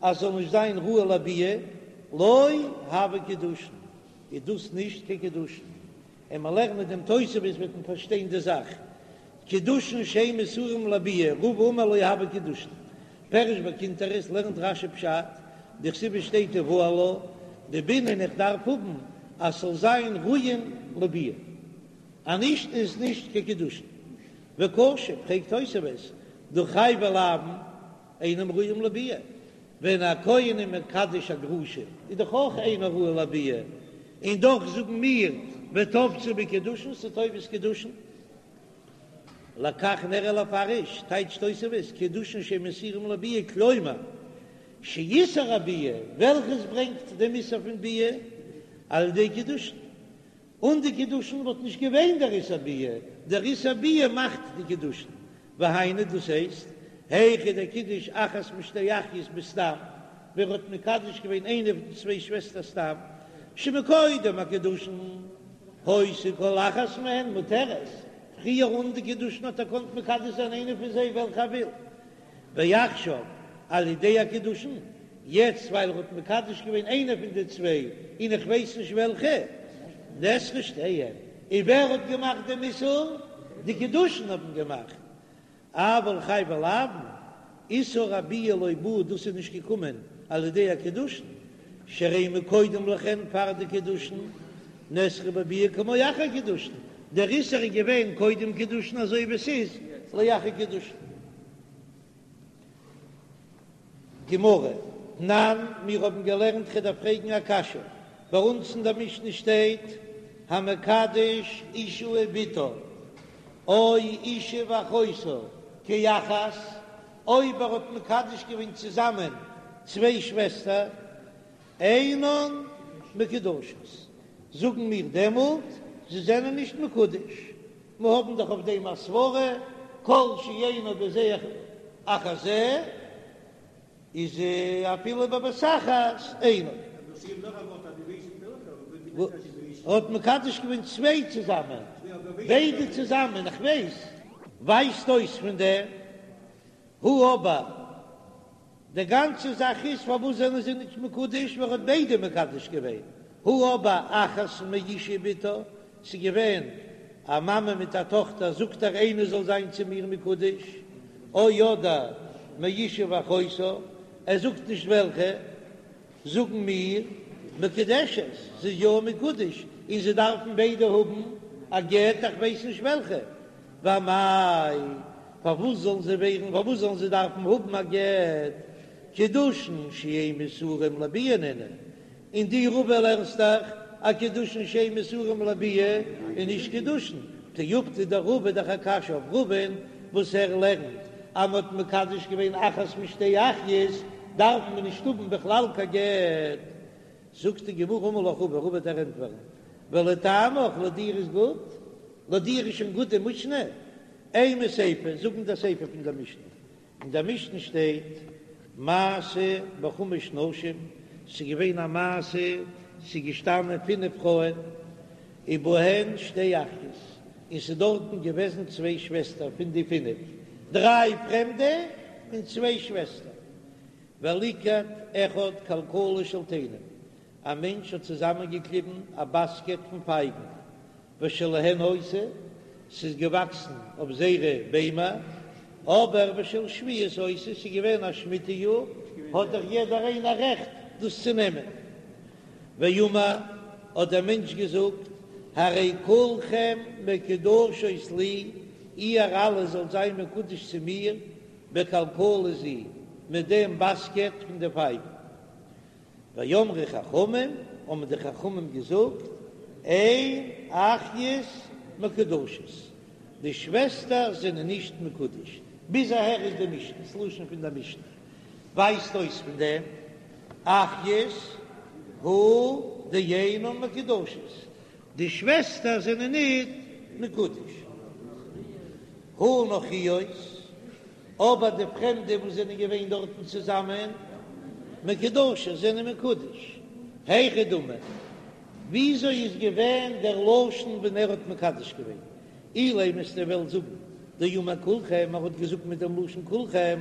אז ס'זאל נישט זיין ראוי לביאה, לא הוו קידושין, איז דאס נישט קיין קידושין, און מען לערנט דעם תוספות וועט מען פארשטיין די זאך, קידושין שאין מסורים לביאה, רבא אמר לא הוו קידושין, פירש בקונטרס לערנט רש"י פשט, דכתיב שטייט ובעלה, דבעינן איך דארף האבן אז ס'זאל זיין ראויין לביאה, אז נישט איז נישט קיין קידושין. וקשה, פרעגט תוספות, דהא חייבי לאוין אינם ראויים לביאה, ווען א כהן איז מקדש א גרושה איז דאך אויך אינו ראוי לביאה, און דאך זאגן מיר ותפסי בה קידושין ס'איז תופס קידושין. לכך נראה לפרש, טייטשט תוספות, קידושין שאין מסורים לביאה, כלומר, שאיסור הביאה, וועלכעס ברענגט דעם איסור פון ביאה, על ידי קידושין. אן די קידושין וואלט נישט געווען דער איסור ביאה, דער איסור ביאה מאכט די קידושין. והיינו, דאס הייסט, היכא דקידש אחת משתי אחיות בסתם, ווען ער האט מקדש געווען איינע פון די צוויי שוועסטער סתם, שמקודם הקידושין, היתה כל אחת מהן מותרת, פריער אן די קידושין האט ער געקאנט מקדש זיין איינע פון זיי וועלכע ער וויל, ועכשיו על ידי הקידושין, יעצט ווייל ער האט מקדש געווען איינע פון די צוויי און איך ווייס נישט וועלכע, נאסרו שתיהן, און ווער האט געמאכט דעם איסור? די קידושין האבן געמאכט, אבל חייבי לאוין, איסור הביאה לא בא, דאס איז נישט געקומען על ידי הקידושין, שהרי מקודם לכן פאר די קידושין, נאסרו בביאה כמו אחר קידושין, דער איסור איז געווען קודם קידושין אזוי ווי עס איז לאחר קידושין. גמרא, תנן, מיר האבן געלערנט כ'דארף פרעגן א קשיא, ביי אונז אין דער משנה שטייט המקדש אשה ובתה או אשה ואחותה כאחת, אויב ער האט מקדש געווען צוזאמען צוויי שוועסטער, אינן מקודשות, זאגן מיר דעמאלט זיי זענען נישט מקודש, מיר האבן דאך אויף דעם א סברא, כל שאינו בזה אחר זה, איז אפילו בבת אחת אינו. ער האט מקדש געווען צוויי צוזאמען, ביידע צוזאמען, איך ווייס. ווייזט אויס פון דעם הא אבער די גאנצע זאך איז פארוואס זענען זיי נישט מקודש ווייל ער האט ביידע מקדש געווען, הא אבער אחת מאשה ובתה, ס'איז געווען א מאמע מיט א טאכטער זאגט ער איינע זאל זיין צו מיר מקודש, או אדער מאשה ואחותה, ער זאגט נישט וועלכע. זאגן מיר, מקודשת, זי איז יא מקודש, און זיי דארפן ביידע האבן א גט, איך ווייס נישט וועלכע, ואמאי, פארוואס זאלן זיי ווערן, פארוואס זאלן זיי דארפן האבן א גט, קידושין שאין מסורים לביאה נינהו, און דו רבא לערנסט דאך אז קידושין שאין מסורים לביאה איז נישט קידושין, תיובתא דרבא דאך א קשיא אויף רבא'ן וואס ער לערנט אז מען האט מקדש געווען אחת משתי אחיות דארף מען נישט האבן בכלל קיין גט, זאגט די גמרא אמר לך רבא, רבא וועט דיר ענטפערן, ולטעמיך לויט דיר איז גוט, לויט דיר איז שוין גוט די משנה, אימא סיפא, זאג מיר די סיפא פון דער משנה, אין דער משנה שטייט מעשה בחמש נשים, ס'איז געווען א מעשה, ס'איז געשטאנען פינף פרויען. ובהן שתי אחיות, און ס'איז דארטן געוועזן צוויי שוועסטער פון די פינף, דריי פרעמדע און צוויי שוועסטער. וליקט אחד כלכלה של תאנים, א מענטש האט צוזאמענגעקליבן א באסקעט פון פייגן, ושלהן היתה, ס'איז געוואקסן אויף זייערע ביימער, אבער ושל שביעית היתה, ס'איז געווען א שמיטה יאר, האט דאך יעדער איינער רעכט דאס צו נעמען. ואמר, האט דער מענטש געזאגט, הרי כולכם מקודשות לי, איר אלע זאלט זיין מקודש צו מיר, בכלכלה זו, מיט דעם באסקעט פון די פייגן. ואמרו חכמים, האבן די חכמים געזאגט, אין אחיות מקודשות, די שוועסטער זענען נישט מקודש. ביז אהער איז די משנה, ס'לשון פון דער משנה ווייזט אויס פון דעם, אחיות הוא דאינן מקודשות, די שוועסטער זענען ניט מקודש. הא נכריות, אבער די פרעמדע וואס זענען געווען דארטן צוזאמען, מקודשות, זענען מקודש. היכי דמי, וויאזוי איז געווען דער לשון ווען ער האט מקדש געווען? אילימא וועסטו וועלן זאגן דאמר כולכם, ער האט געזאגט מיט דעם לשון כולכם,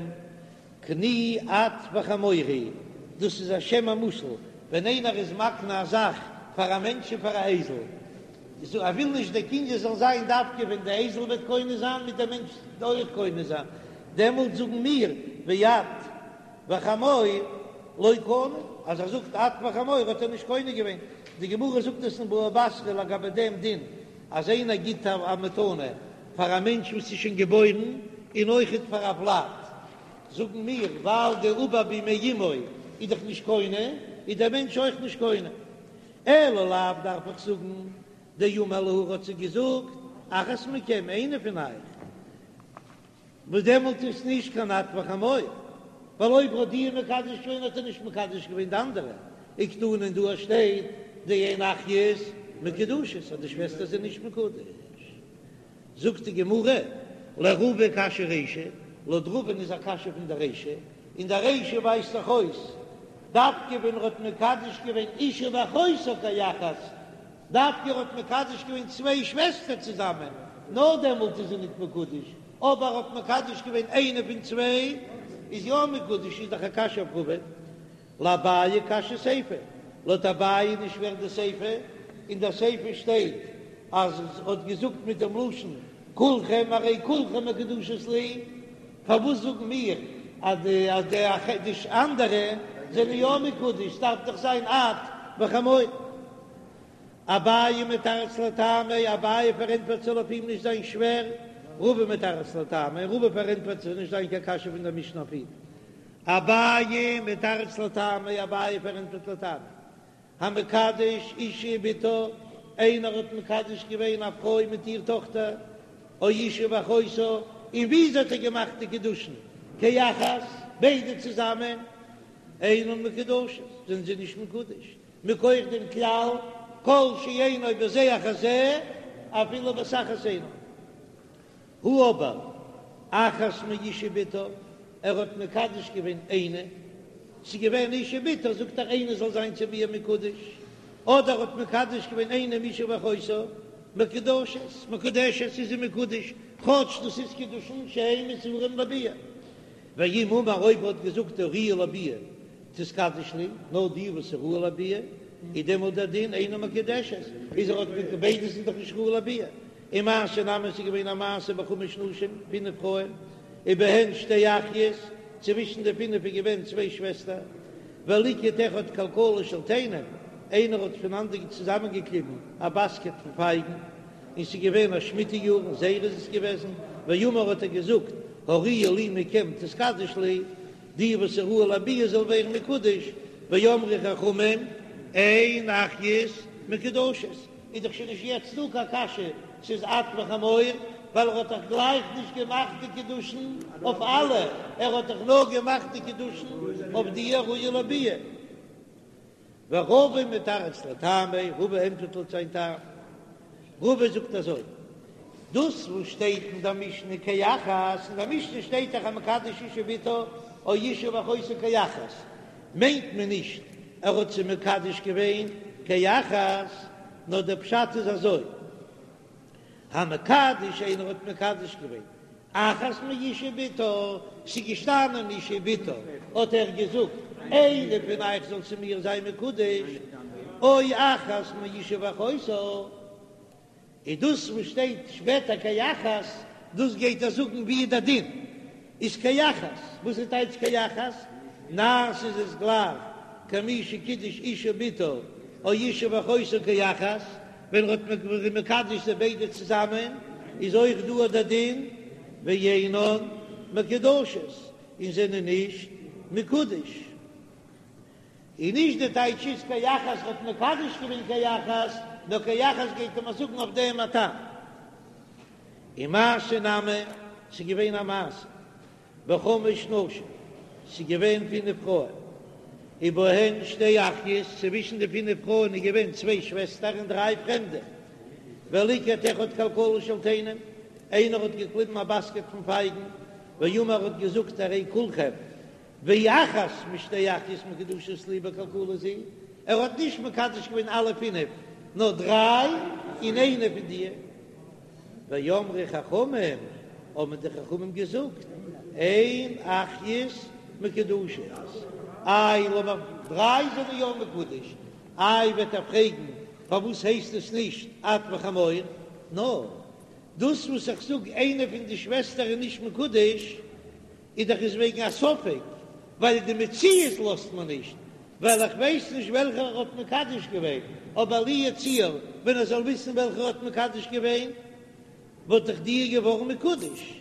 קני את וחמורי, דאס איז א שם המושאל, ווען איינער איז מקנה א זאך פאר א מענטש און פאר א אייזל, ער וויל נישט דער קנין זאל זיין דווקא ווען די אייזל וועט קונה זיין מיט דער מענטש אויך קונה זיין, דעמאלט זאגן מיר ואת וחמור לא קנה, אז ער זאגט את וחמור האט ער נישט קונה געווען, די גמרא זאגט עס אין בבא בתרא לגבי דעם דין אז איינער גיט א מתנה פאר א מענטש וואס איז שוין געבוירן און אויכעט פאר א ולד, זאגן מיר ווייל די עובר במעי אמו איז דאך נישט קונה, איז דער מענטש אויך נישט קונה. אלא לאו דארף איך זאגן דאמר להו האט זיי געזאגט אחת מכם איינע פון אייך, וואס דעמאלט איז נישט קיין את וחמור, ווייל אויב האט דיר מקדש געווען האט ער נישט מקדש געווען די אנדערע, וקתני און דא שטייט דאין אחיות מקודשות אז די שוועסטער זענען נישט מקודש. זאגט די גמרא, לרבא קשיא רישא, לויט רבא'ן איז א קשיא פון די רישא, און די רישא ווייזט דאך אויס דווקא ווען ער האט מקדש געווען אשה ואחותה כאחת, דווקא ער האט מקדש געווען צוויי שוועסטער צוזאמען, נאר דעמאלט איז זי ניט מקודש, אבער ער האט מקדש געווען איינע פון צוויי איז יא מקודש, איז דאך א קשיא אויף רבא. לאביי קשיא סיפא, לויט אביי איז נישט שווער די סיפא, אין דער סיפא שטייט אז ער האט געזאגט מיט דעם לשון כולכם הרי כולכם מקודשות לי, פארוואס זאגן מיר אז די אז די אנדערע זענען יא מקודש, ס'דארף דאך זיין את וחמור. אביי מתרץ לטעמיה, אביי פארענטפערט ס'זאל אויף אים נישט זיין שווער, רבא מתרץ לטעמיה, רבא פארענטפערט ס'זאל נישט זיין קיין קשיא פון דער משנה אויף אים. אביי מתרץ לטעמיה, אביי פארענטפערט לטעמיה, המקדש אשה ובתה, איינער האט מקדש געווען א פרוי מיט איר טאכטער, או אשה ואחותה, און וויאזוי האט ער געמאכט די קידושין? כאחת, ביידע צוזאמען, אינן מקודשות, זענען זיי נישט מקודש, מכח דעם כלל כל שאינו בזה אחר זה, אפילו בבת אחת אינו. הא אבער אחת מאשה ובתה, ער האט מקדש געווען איינע, ס'איז געווען אשה ובתה, זאגט ער איינע זאל זיין צו מיר מקודש, אדער האט מקדש געווען איינע מאשה ואחותה, מקודשות, מקודשת איז זי מקודש, כאטש דאס איז קידושין שאין מסורים לביאה. ואם אמר אויב ער האט געזאגט הראויה לביאה תתקדש לי, נאר די וואס איז ראוי לביאה, איז דעמאלט דער דין אינה מקודשת, איז ער האט מיט ביידע זענען דאך נישט ראוי לביאה. ומעשה נמי ס'איז געווען א מעשה בחמש נשים, פינף פרויען, ובהן שתי אחיות, צווישן די פינף איז געווען צוויי שוועסטער, וליקט אחד כלכלה של תאנים, איינער האט פונאנדער צוזאמענגעקליבן א באסקעט פון פייגן, און ס'איז געווען א שמיטה יאר, אין זייער איז עס געוועזן, ואמר האט ער געזאגט, הראויה לי מכם תתקדש לי, די וואס איז ראוי לביאה זאל ווערן מקודש, ואמרו חכמים, אין אחיות מקודשות, איז דאך שוין נישט יעצט דא קיין קשיא ס'איז את וחמור, ווייל ער האט דאך גלייך נישט געמאכט די קידושין אויף אלע, ער האט דאך נאר געמאכט די קידושין אויף די הראויה לביאה. ורבא מתרץ לטעמיה, רבא ענטפערט לויט זיין טעם. רבא זאגט אזוי, דאס וואס שטייט אין דער משנה כאחת, אין דער משנה שטייט דאך המקדש אשה ובתה או אשה ואחותה כאחת, מיינט מען נישט ער האט זיי מקדש געווען כאחת. נאר דער פשט איז אזוי, המקדש איינער האט מקדש געווען אחת מאיש ובתה, ס'איז געשטאנען אישה ובתה, האט ער געזאגט איינע פון אייך זאל צו מיר זיין מקודש, או אחת מאישה ואחותה, איז דאס וואס שטייט שפעטער כאחת, דאס גייט ער זאגן ווי איז דער דין איז כאחת, וואס איז טייטש כאחת? נעשה איז עס גלייך כמי שקידש אישה ובתה או אישה ואחותה כאחת, ווען ער האט מקדש זיי ביידע צוזאמען איז אויך דא אט דער דין ואינן מקודשות און זענען נישט מקודש. און נישט די טייטש איז כאחת האט מקדש געווען כאחת, נאר כאחת גייט ער מיר זאגן אויף דעם א טעם. ומעשה נמי, ס'איז געווען א מעשה בחמש נשים, ס'איז געווען פינף פרויען, ובהן שתי אחיות, צווישן די פינף פרויען איז געווען צוויי שוועסטער און דריי פרעמדע, וליקט אחד כלכלה של תאנים, איינער האט געקליבן א באסקעט פון פייגן, ואמר האט געזאגט הרי כולכם ואחת משתי אחיות מקודשות לי בכלכלה זו, ער האט נישט מקדש געווען אלע פינף, נאר דריי און איינע פון די. ואמרו חכמים, האבן די חכמים געזאגט, אין אחיות מקודשות, איי לאמיר דריי זענען יא מקודש, איי וועט ער פרעגן פארוואס הייסט עס נישט את וחמור, נאר דאס וואס איך זאג איינע פון די שוועסטער איז נישט מקודש, איז דאך עס וועגן א ספק, ווייל די מציאות לאזט מען נישט, ווייל איך ווייס נישט וועלכער ער האט מקדש געווען, אבער לו יצוייר ווען ער זאל וויסן וועלכער האט מקדש געווען, וואלט דאך די געווארן מקודש.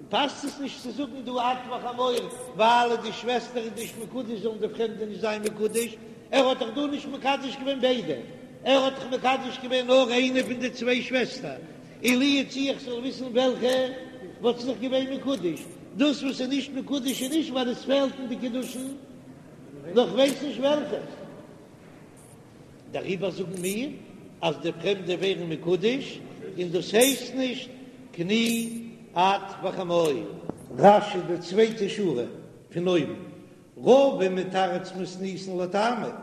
פאסט עס נישט צו זאגן דא את וחמור, ווייל די שוועסטער איז נישט מקודש זאלן די פרעמדע נישט זיין מקודש, ער האט דאך דא נישט מקדש געווען ביידע, ער האט דאך מקדש געווען נאר איינע פון די צוויי שוועסטער, און לו יצוייר איך זאל וויסן וועלכע וואלט זי דאך געווען מקודש, דאס וואס איז נישט מקודש איז נישט ווייל עס פעלט אין די קידושין, נאר כ'ווייס נישט וועלכע. דעריבער זאגן מיר אז די פרעמדע ווערן מקודש, און דאס הייסט נישט קני את וחמור. רש"י די צווייטע שורה פון אויבן, רבא מתרץ מתניתין לטעמיה,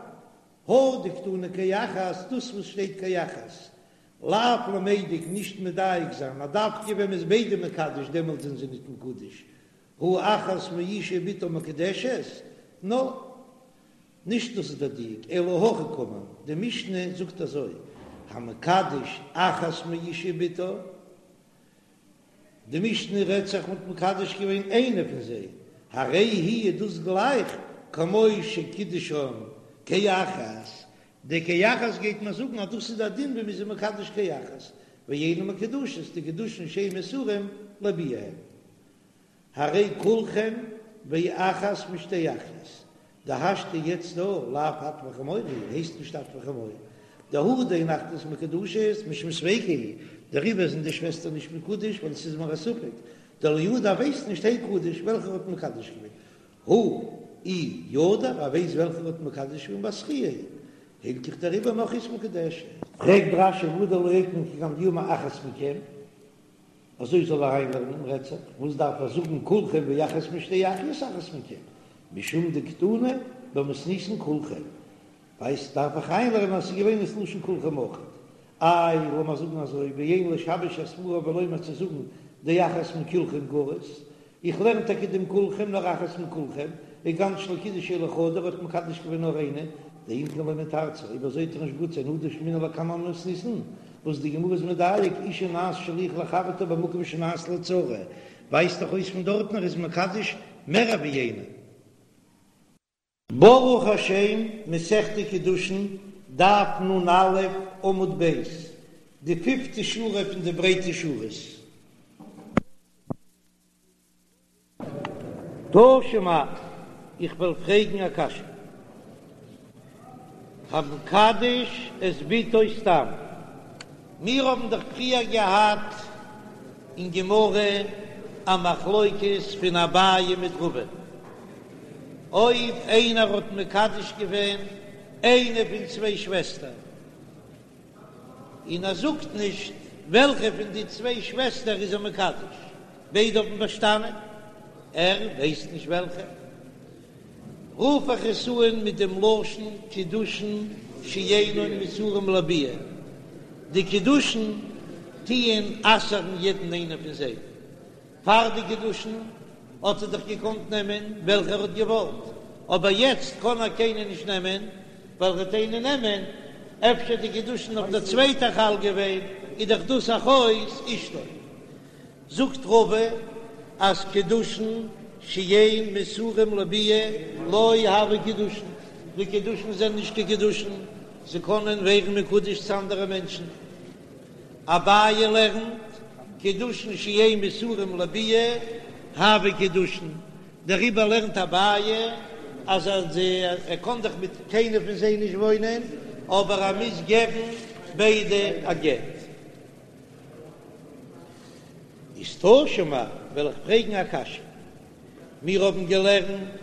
הא דקתני כאחת, דאס וואס שטייט כאחת, לאו למידק נישט מדייק זיין אז דווקא ווען מ'איז ביידע מקדש דעמאלט זענען זיי נישט מקודש, הא אחת מאישה ובתה מקודשת, נאר נישט דאס איז דער דיוק, אלא הכי קאמר, די משנה זאגט אזוי, המקדש אחת מאישה ובתה, די משנה רעדט זיך מ'האט מקדש געווען איינע פון זיי, הרי היא איז דאס גלייך כמו שקידשן כאחת, די כאחת גייט מען זאגן אז דאס איז א דין ווי מ'איז מקדש כאחת, ואינן מקודשות, די קידושין שאין מסורים לביאה הן. הרי כולכם ואחת משתי אחיות, דהשתא יעצט דא לאו את וחמור היא, הייסט נישט את וחמור, דהא דאין אחיות מקודשות משום ספיקא הוא, דעריבער זענען די שוועסטער נישט מקודש ווייל עס איז מיר א ספק, דלא ידע ווייסט נישט הי קדיש וועלכער האט מקדש געווען, הא אי ידע ער ווייסט וועלכער האט מקדש געווען בת זכייה היא, הילכך דעריבער נכריות מקודשת. פרעגט רש"י והא דלא אוקמה כגון דאמר אחת מכם. אזוי זאל ער אריינלערנען רעדט זיך, וואס דארף ער זאגן כולכם ואחת משתי אחיות אחת מכם, משום דקתני במתניתין כולכם, ווייסט דארף איך אריינלערנען אז ס'איז געווען דאס לשון כולכם אויך, איי לאמיר זאגן אזוי ואין לשבש הסברא ולומר צו זאגן דאחת מכולכם גריס, איך לערן טאקע דעם כולכם נאר אחת מכולכם, כגון שלא קידש אלא חדא ער האט מקדש געווען נאר איינע, דאם כן לא מתרצא, אויב אזוי וועט דאך נישט גוט זיין הא דשמעינן לקמן במתניתין, וואס די גמרא איז מדייק אשה נעשית שליח לחברתה במקום שנעשית לצרה, ווייזט דאך אויס פון דארטן ער איז מקדש מער ווי איינע. ברוך השם, מסכת קידושין, דף נ"א, עמוד ב', די פיפטע שורה פון די ברייטע שורות. תא שמע, איך וועל פרעגן א קשיא. המקדש את בתו סתם. מיר האבן דאך פריער געהאט אין גמרא א מחלוקת פון אביי מיט רבא. אויב איינער האט מקדש געווען איינע פון צוויי שוועסטער, און ער זאגט נישט וועלכע פון די צוויי שוועסטער איז ער מקדש, ביידע האבן באשטאנען, ער ווייסט נישט וועלכע. רוף איך עס אן מיט דעם לשון קידושין שאינן מסורים לביאה, די קידושין טוען אסר'ן יעדן איינעם פון זיי, פאר די קידושין האט ער דאך געקאנט נעמען וועלכע ער האט געוואלט, אבער יעצט קען ער קיינע נישט נעמען, ווייל ער וועט איינע נעמען, אפשר די קידושין אויף דער צווייטער חל געווען, איז דאך דאס אחות אשתו. זאגט רבא אז קידושין שאין מסורים לביאה לא הוו קידושין, די קידושין זענען נישט קיין קידושין, זיי קענען ווערן מקודש צו אנדערע מענטשן. אביי לערנט, קידושין שאין מסורים לביאה הוו קידושין, דעריבער לערנט אביי אז ער קען דאך מיט קיינער פון זיי נישט וואוינען, אבער ער מוז געבן ביידע א גט. איז תא שמע, וועל איך פרעגן א קשיא. מיר האבן געלערנט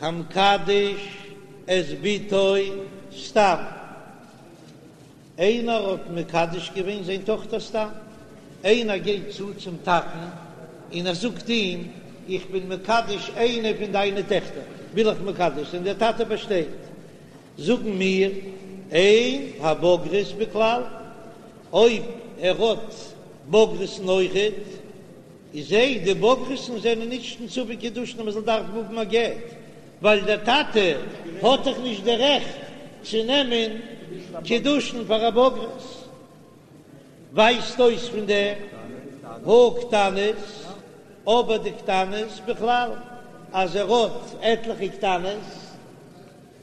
המקדש את בתו סתם. איינער האט מקדש געווען זיין טאכטער סתם. איינער גייט צו צום טאטן און ער זאגט אים, איך בין מקדש איינע פון דיינע טעכטער, וויל איך מקדש זיין, דער טאטע באשטייט. זאגן מיר, אין הבוגרות בכלל, אויב ער האט בוגרת'ן אויכעט, איז זיי, די בוגרת'ן זענען נישט אין ספק קידושין אז מען זאל דארפן האבן א גט, ווייל דער טאטע האט דאך נישט די רעכט צו נעמען קידושין פאר א בוגרת. ווייזט אויס פון דעם הא קטנות, אבער די קטנות בכלל, אז ער האט עטליכע קטנות,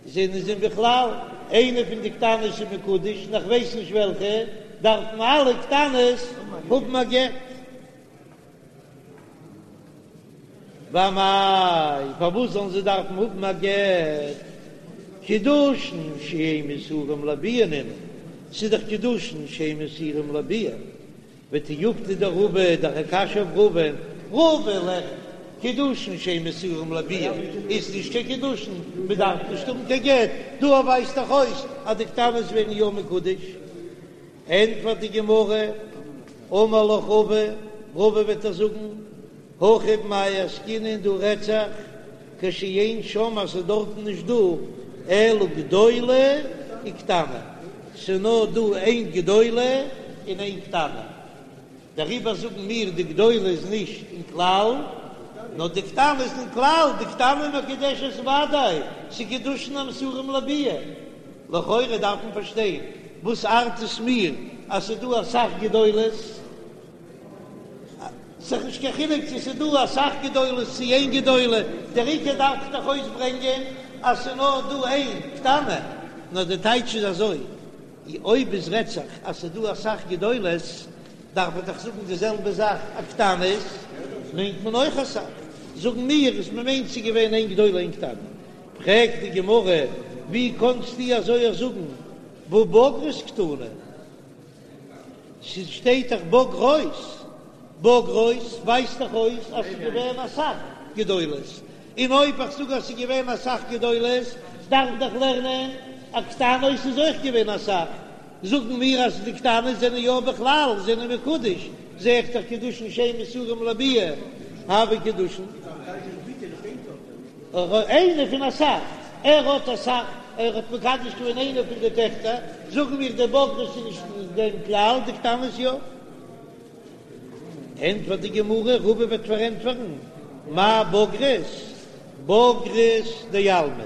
זענען זיי בכלל איינע פון די קטנות איז מקודש און איך ווייס נישט וועלכע, דארפן אלע קטנות האבן א גט. ואמאי, פארוואס זאלן זיי דארפן האבן א גט? קידושין שאין מסורים לביאה נינהו, ס'איז דאך קידושין שאין מסורים לביאה. ותיובתא דרבא, דאך א קשיא אויף רבא, רבא לערנט, קידושין שאין מסורים לביאה איז נישט קיין קידושין, מען דארף נישט האבן קיין גט, דא ווייזט דאך אויס אז די קטנות ווערן יא מקודש. ענטפערט די גמרא, אמר לך רבא, רבא וועט דיר זאגן, הכא במאי עסקינן דא רעדט זיך כשאין שם אז ס'איז דארטן נישט דא אלא גדולה וקטנה, ס'איז נאר דא איין גדולה און איין קטנה, דעריבער זאגן מיר די גדולה איז נישט אין כלל, נאר די קטנה איז אין כלל, די קטנה מקודשת ודאי, ס'איז קידושין המסורים לביאה. לכאורה דארף מען פארשטיין וואס ארט עס מיר אז ס'איז דא אסאך גדולות, ס'איז נישט קיין חילוק צו ס'איז דא אסאך גדולות צו איין גדולה, דער עיקר דארף איך דאך אויסברענגען אז ס'איז נאר דא איין קטנה, נאר די טייטש איז אזוי, אויב עס רעדט זיך אז ס'איז דא אסאך גדולות, דארף איך דאך זאגן די זעלבע זאך אז קטנות מיינט מען אויך אסאך, זאגן מיר אז מ'מיינט ס'איז געווען איין גדולה איין קטנה, פרעגט די גמרא, ווי קאנסטו אזוי אויך זאגן והא בוגרות קתני? ס'שטייט דאך בוגרות, בוגרות ווייזט דאך אויס אז ס'איז געווען אסאך גדולות, און אויב איך זאג אז ס'איז געווען אסאך גדולות, דארף איך דאך לערנען אז קטנות איז אויך געווען אסאך, זאגן מיר אז די קטנות זענען יא בכלל זענען מקודש, זע איך דאך קידושין שאין מסורים לביאה הוו קידושין. איינע פון אסאך, ער האט אסאך, ער האט מקדש געווען איינע פון די טעכטער, זאגן מיר די בוגרות איז נישט אין דעם כלל, די קטנות יא. ענטפערט די גמרא, רבא וועט פארענטפערן, מאי בוגרות, בוגרות דעלמא,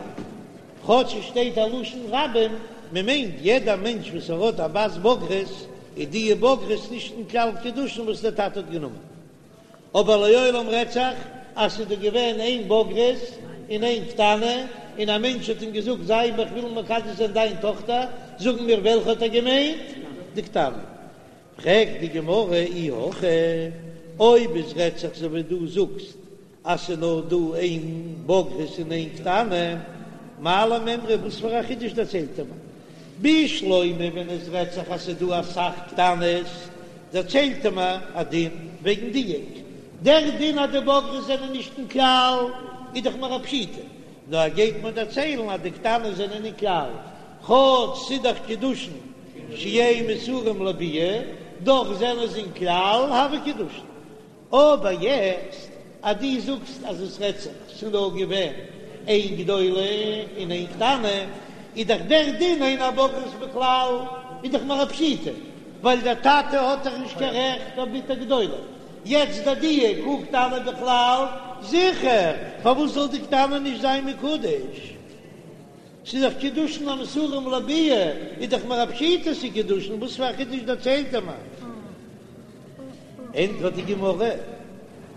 כאטש עס שטייט א לשון רבים, מען מיינט יעדע מענטש וואס ער האט א בת בוגרת, איז די בוגרות נישט אין כלל קידושין וואס דער טאטע האט גענומען. אבער לעולם רעדט זיך אז ס'איז דא געווען איין בוגרת און איין קטנה, און א מענטש האט אים געזאגט זיי איך וויל מקדש זיין דיין טאכטער, זאגן מיר וועלכע האט ער געמיינט? די קטנה. פרעגט די גמרא אי הכי, אויב עס רעדט זיך אזוי ווי דו זאגסט אז ס'איז נאר דא איין בוגרת און איין קטנה, מאי למימרא, וואס פאר א חידוש דערציילט ער מיר? בשלמא ווען עס רעדט זיך אז ס'איז דא אסאך קטנות, דערציילט ער מיר א דין וועגן דיוק. דער דין אז די בוגרות זענען נישט אין כלל איז דאך מיר א פשיטא, נאר ער גייט מיר דערציילן אז די קטנות זענען אין כלל, כאטש ס'איז דאך קידושין שאין מסורים לביאה, דאך זענען זיי אין כלל הוו קידושין. אבער יעצט אז דו זאגסט אז עס רעדט זיך ס'איז נאר געווען. איין גדולה און איין קטנה, איז דאך דער דין אין הבוגרות בכלל איז דאך מיר א פשיטא, ווייל דער טאטע האט דאך נישט קיין רעכט אויף בתו גדולה, יעצט די דיוק הא קטנה בכלל, זיכער, פארוואס זאל די קטנה נישט זיין מקודש? ס'איז דאך קידושין המסורים לביאה, איז דאך מיר א פשיטא ס'איז קידושין, וואס פאר א חידוש דערציילט ער מיר? ענטפערט די גמרא,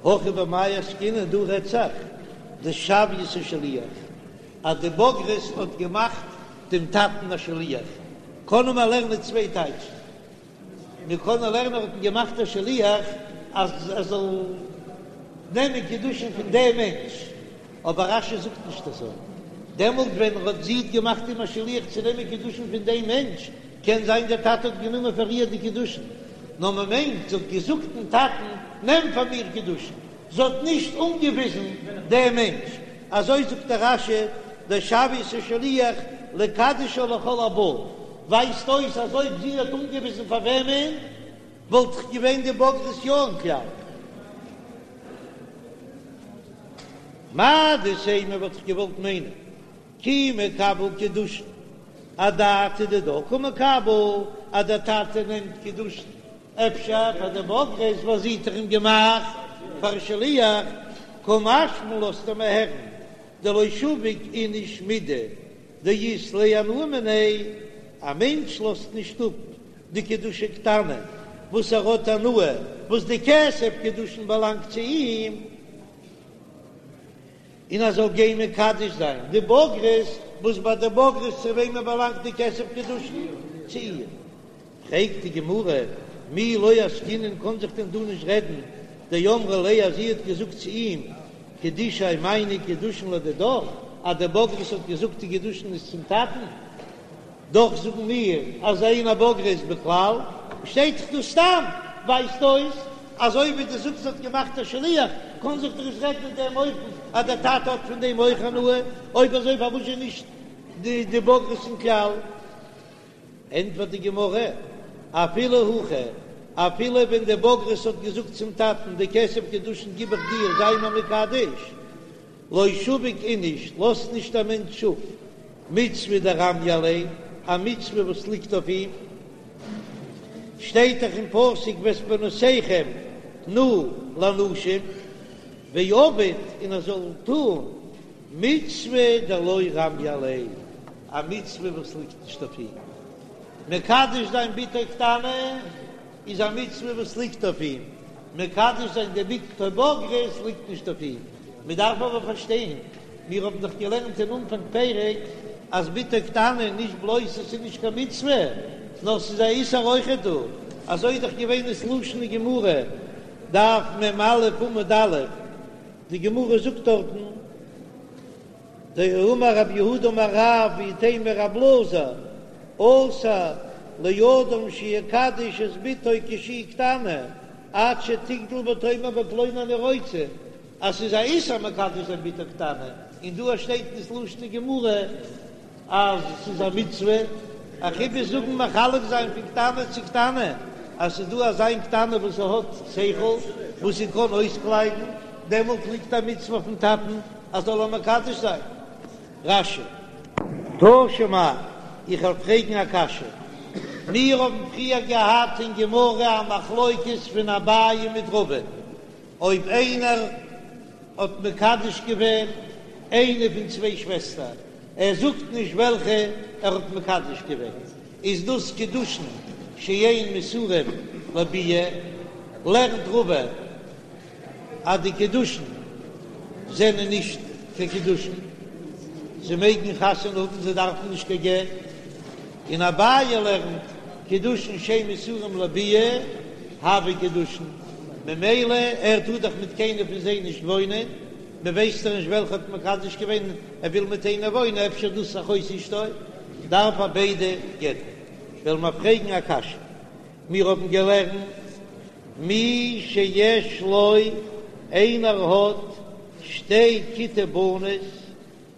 הכא במאי עסקינן, דא רעדט זיך דשויתיה שליח, אז די בוגרת האט געמאכט דעם טאטן א שליח, קענען מיר לערנען צוויי טייטשן, מיר קענען לערנען ער האט אים געמאכט א שליח אז ער זאל נעמען קידושין פון דעם מענטש, אבער רש"י זאגט נישט אזוי, דעמאלט ווען ער האט זי האט געמאכט אים א שליח צו נעמען קידושין פון דעם מענטש, קען זיין דער טאטע האט גענומען פאר איר די קידושין, נאר מען מיינט זי האט געזאגט דעם טאטן נעם פאר מיר קידושין, זי האט נישט אנגעוויזן דעם מענטש, אזוי זאגט דער רש"י, דשויתיה שליח לקדשה לכל הבא, ווייזט אויס אז אויב זי האט אנגעוויזן פאר וועמען, וואלט דאך געווען די בוגרת יא אין כלל. מהו דתימא וואלט איך געוואלט מיינען כי מקבל קידושין אדעתא דידה קא מקבל אז דער טאטע נעמט קידושין אפשר פאר די בוגרת וואס זי האט דאך אים געמאכט פאר שליח קא משמע לן לאזט ער מיר הערן דלא שביק איניש מידי דאית ליה הנאה מיניה, א מענטש לאזט נישט אפ די קידושי קטנה וואס ער האט הנאה וואס די כסף קידושין באלאנגט צו אים, און ער זאל גיין מקדש זיין די בוגרת וואס ביי די בוגרת צו וועמען באלאנגט די כסף קידושין? צו איר. פרעגט די גמרא, מי לא עסקינן קען זיך דען דא נישט רעדן, דאמרה ליה אז זי האט געזאגט צו אים, קידושי מיינע קידושין לדידך, אז די בוגרת האט געזאגט די קידושין איז צום טאטן, דאך זאגן מיר אז אין הבוגרות בכלל, שטייט דאך דא סתם, ווייזט אויס אז אויב ווי דו זאגסט האט געמאכט א שליח, קען זיך דאך נישט רעדן אין דעם אופן אז דער טאטע האט פון דעם אויך הנאה, אויב אזוי פארוואס איז נישט די בוגרת אין כלל? ענטפערט די גמרא, אפילו הכי, אפילו ווען די בוגרת האט געזאגט צום טאטן, די כסף קידושין גיב איך דיר, זיי מיר מקדש, לא שביק איניש, לאזט נישט א מענטש אפ מצוה דרמיא עליה, א מצוה וואס ליגט אויף אים, שטייט דאך אין פסוק ואת בנותיכם תנו לנשים, ועביד און ער זאל טון מצוה דלא רמיא עליה, א מצוה וואס ליגט נישט אויף אים. מקדש זיין בתו קטנה איז א מצוה וואס ליגט אויף אים, מקדש זיין די בתו בוגרת ליגט נישט אויף אים. מען דארף אבער פארשטיין, מיר האבן דאך געלערנט אין אנפאנג פרק אז בתו קטנה נישט בלויז עס איז נישט קיין מצוה, נאר ס'איז א איסור אויכעט דא, אזוי איז דאך געווען דאס לשון אין גמרא, דף מ"א עמוד א', די גמרא זאגט דארטן, דאמר רב יהודה אמר רב ואיתימא רב אלעזר, אסור לאדם שיקדש את בתו כשהיא קטנה עד שתגדל ותאמר בפלוני אני רוצה, אז ס'איז א איסור מקדש זיין בתו קטנה, און דא שטייט אין ס'לשון אין גמרא אז ס'איז א מצוה, א חידוש זאגן מחלק זיין פון קטנה צו קטנה, אז ס'איז דא אזא איין קטנה וואס זי האט שכל וואס זי קען אויסקלייבן, דעמאלט ליגט א מצוה אויפן טאטן אז זאל איר מקדש זיין. רש"י. תא שמע, איך וועל פרעגן א קשיא. מיר האבן פריער געהאט אין גמרא א מחלוקת פון אביי מיט רבא, אויב איינער האט מקדש געווען איינע פון צוויי שוועסטער, ער זאגט נישט וועלכע ער האט מקדש געווען, איז דאס קידושין שאין מסורים לביאה, לערנט רבא אז די קידושין זענען נישט קיין קידושין, זיי מעגן חתונה האבן, זיי דארפן נישט קיין גט, און אביי לערנט קידושין שאין מסורים לביאה הוו קידושין, ממילא ער טאר דאך מיט קיינער פון זיי נישט וואוינען, מען ווייסט דאך נישט וועלכע האט מקדש געווען, ער וויל מיט איינער וואוינען, אפשר דאס אחות אשתו, דארף ער ביידע גט'ן. וועלן מיר פרעגן א קשיא, מיר האבן געלערנט מי שיש לו, איינער האט שתי כיתי בנות,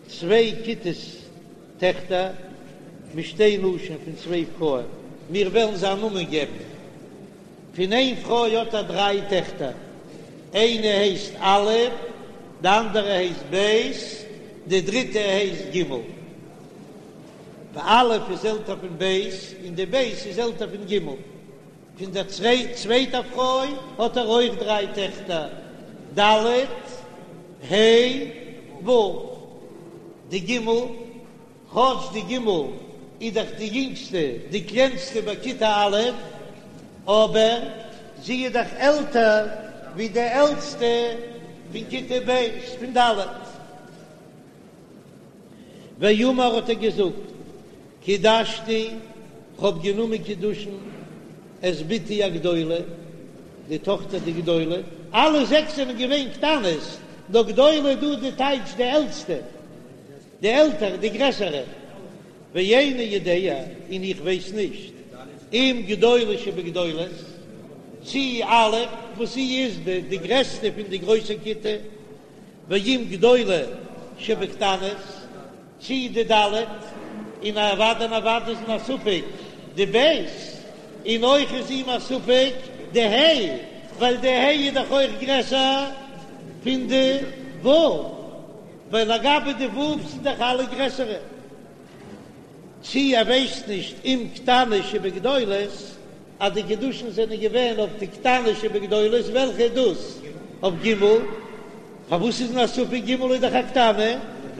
צוויי כיתות טעכטער, משתי נשים פון צוויי פרויען, מיר וועלן זיי א נאמען געבן, פון איין פרוי האט ער דריי טעכטער, איינע הייסט א', די אנדערע הייסט ב', די דריטע הייסט ג'. א' איז עלטער פון ב' און די ב' איז עלטער פון ג'. פון דער צווייטער פרוי האט ער אויך דריי טעכטער, ד', ה', ו'. די ג', כאטש די ג' איז דאך די יונגסטע, די קלענסטע ביי כיתה א', אבער זי איז דאך עלטער ווי די עלטסטע פון כיתה ב', פון ד'. ואמר האט ער געזאגט, קידשתי, כ'האב גענומען קידושין, את בתי הגדולה, די טאכטער די גדולה, אלע זעקס זענען געווען קטנות, נאר גדולה דא די טייטש די עלטסטע, די עלטערע, די גרעסערע, ואיני יודע, און איך ווייס נישט, אם גדולה שבגדולות, צי א' וואס זי איז די גרעסטע פון די גרויסע כיתה, ואם גדולה שבקטנות, צי די ד', און אוודאי און אוודאי איז אים א ספק די ב', און אויך איז אים א ספק די ה', ווייל די ה' איז דאך אויך גרעסער פון די ו', ווייל לגבי די ו' זענען דאך אלע גרעסערע. צי ער ווייסט נישט אם קטנה שבגדולות, אז די קידושין זענען געווען אויף די קטנה שבגדולות, וועלכע איז דאס? אויף ג'? פארוואס איז אים א ספק ג' איז דאך א קטנה,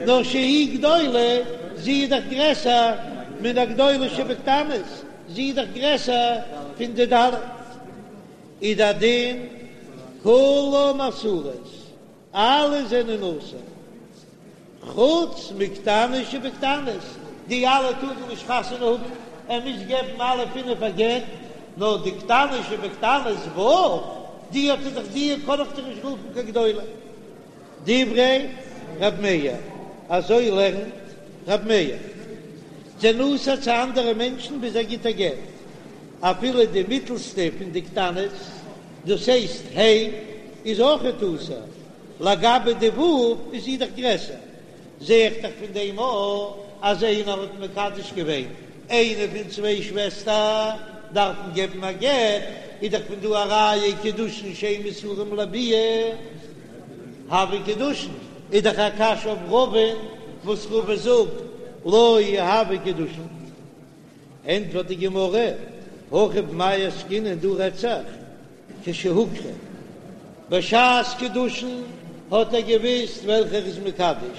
נאר שהיא גדולה, זי איז דאך גרעסער מן הגדולה שבקטנות, זי איז דאך גרעסער פון די ד', איז די דין כולן אסורות, אלע זענען אסור, חוץ מקטנה שבקטנות, די אלע טארן נישט חתונה האבן, ער מוז געבן אלע פינף א גט, נאר די קטנה שבקטנות ו', די האט ער דאך די קען איך דאך נישט רופן קיין גדולה. דברי ר' מאיר, אזוי לערנט ר' מאיר, זענען אסור צו אנדערע מענטשן ביז ער גיט א גט, אפילו די מיטלסטע פון די קטנות, דאס הייסט ה' איז אויכעט אסור, לגבי די ו' איז זי דאך גרעסער, זע איך דאך פון דעם אויך אז איינער האט מקדש געווען איינע פון צוויי שוועסטער דארף מען געבן א גט, איז דאך פון דא א ראיה קידושין שאין מסורים לביאה הוו קידושין, איז דאך א קשיא אויף רבא'ן וואס רבא זאגט לא הוו קידושין. ענטפערט די גמרא, הכא במאי עסקינן דא רעדט זיך כשהוכרו, בשעת קידושין האט ער געוויסט וועלכע ער איז מקדש,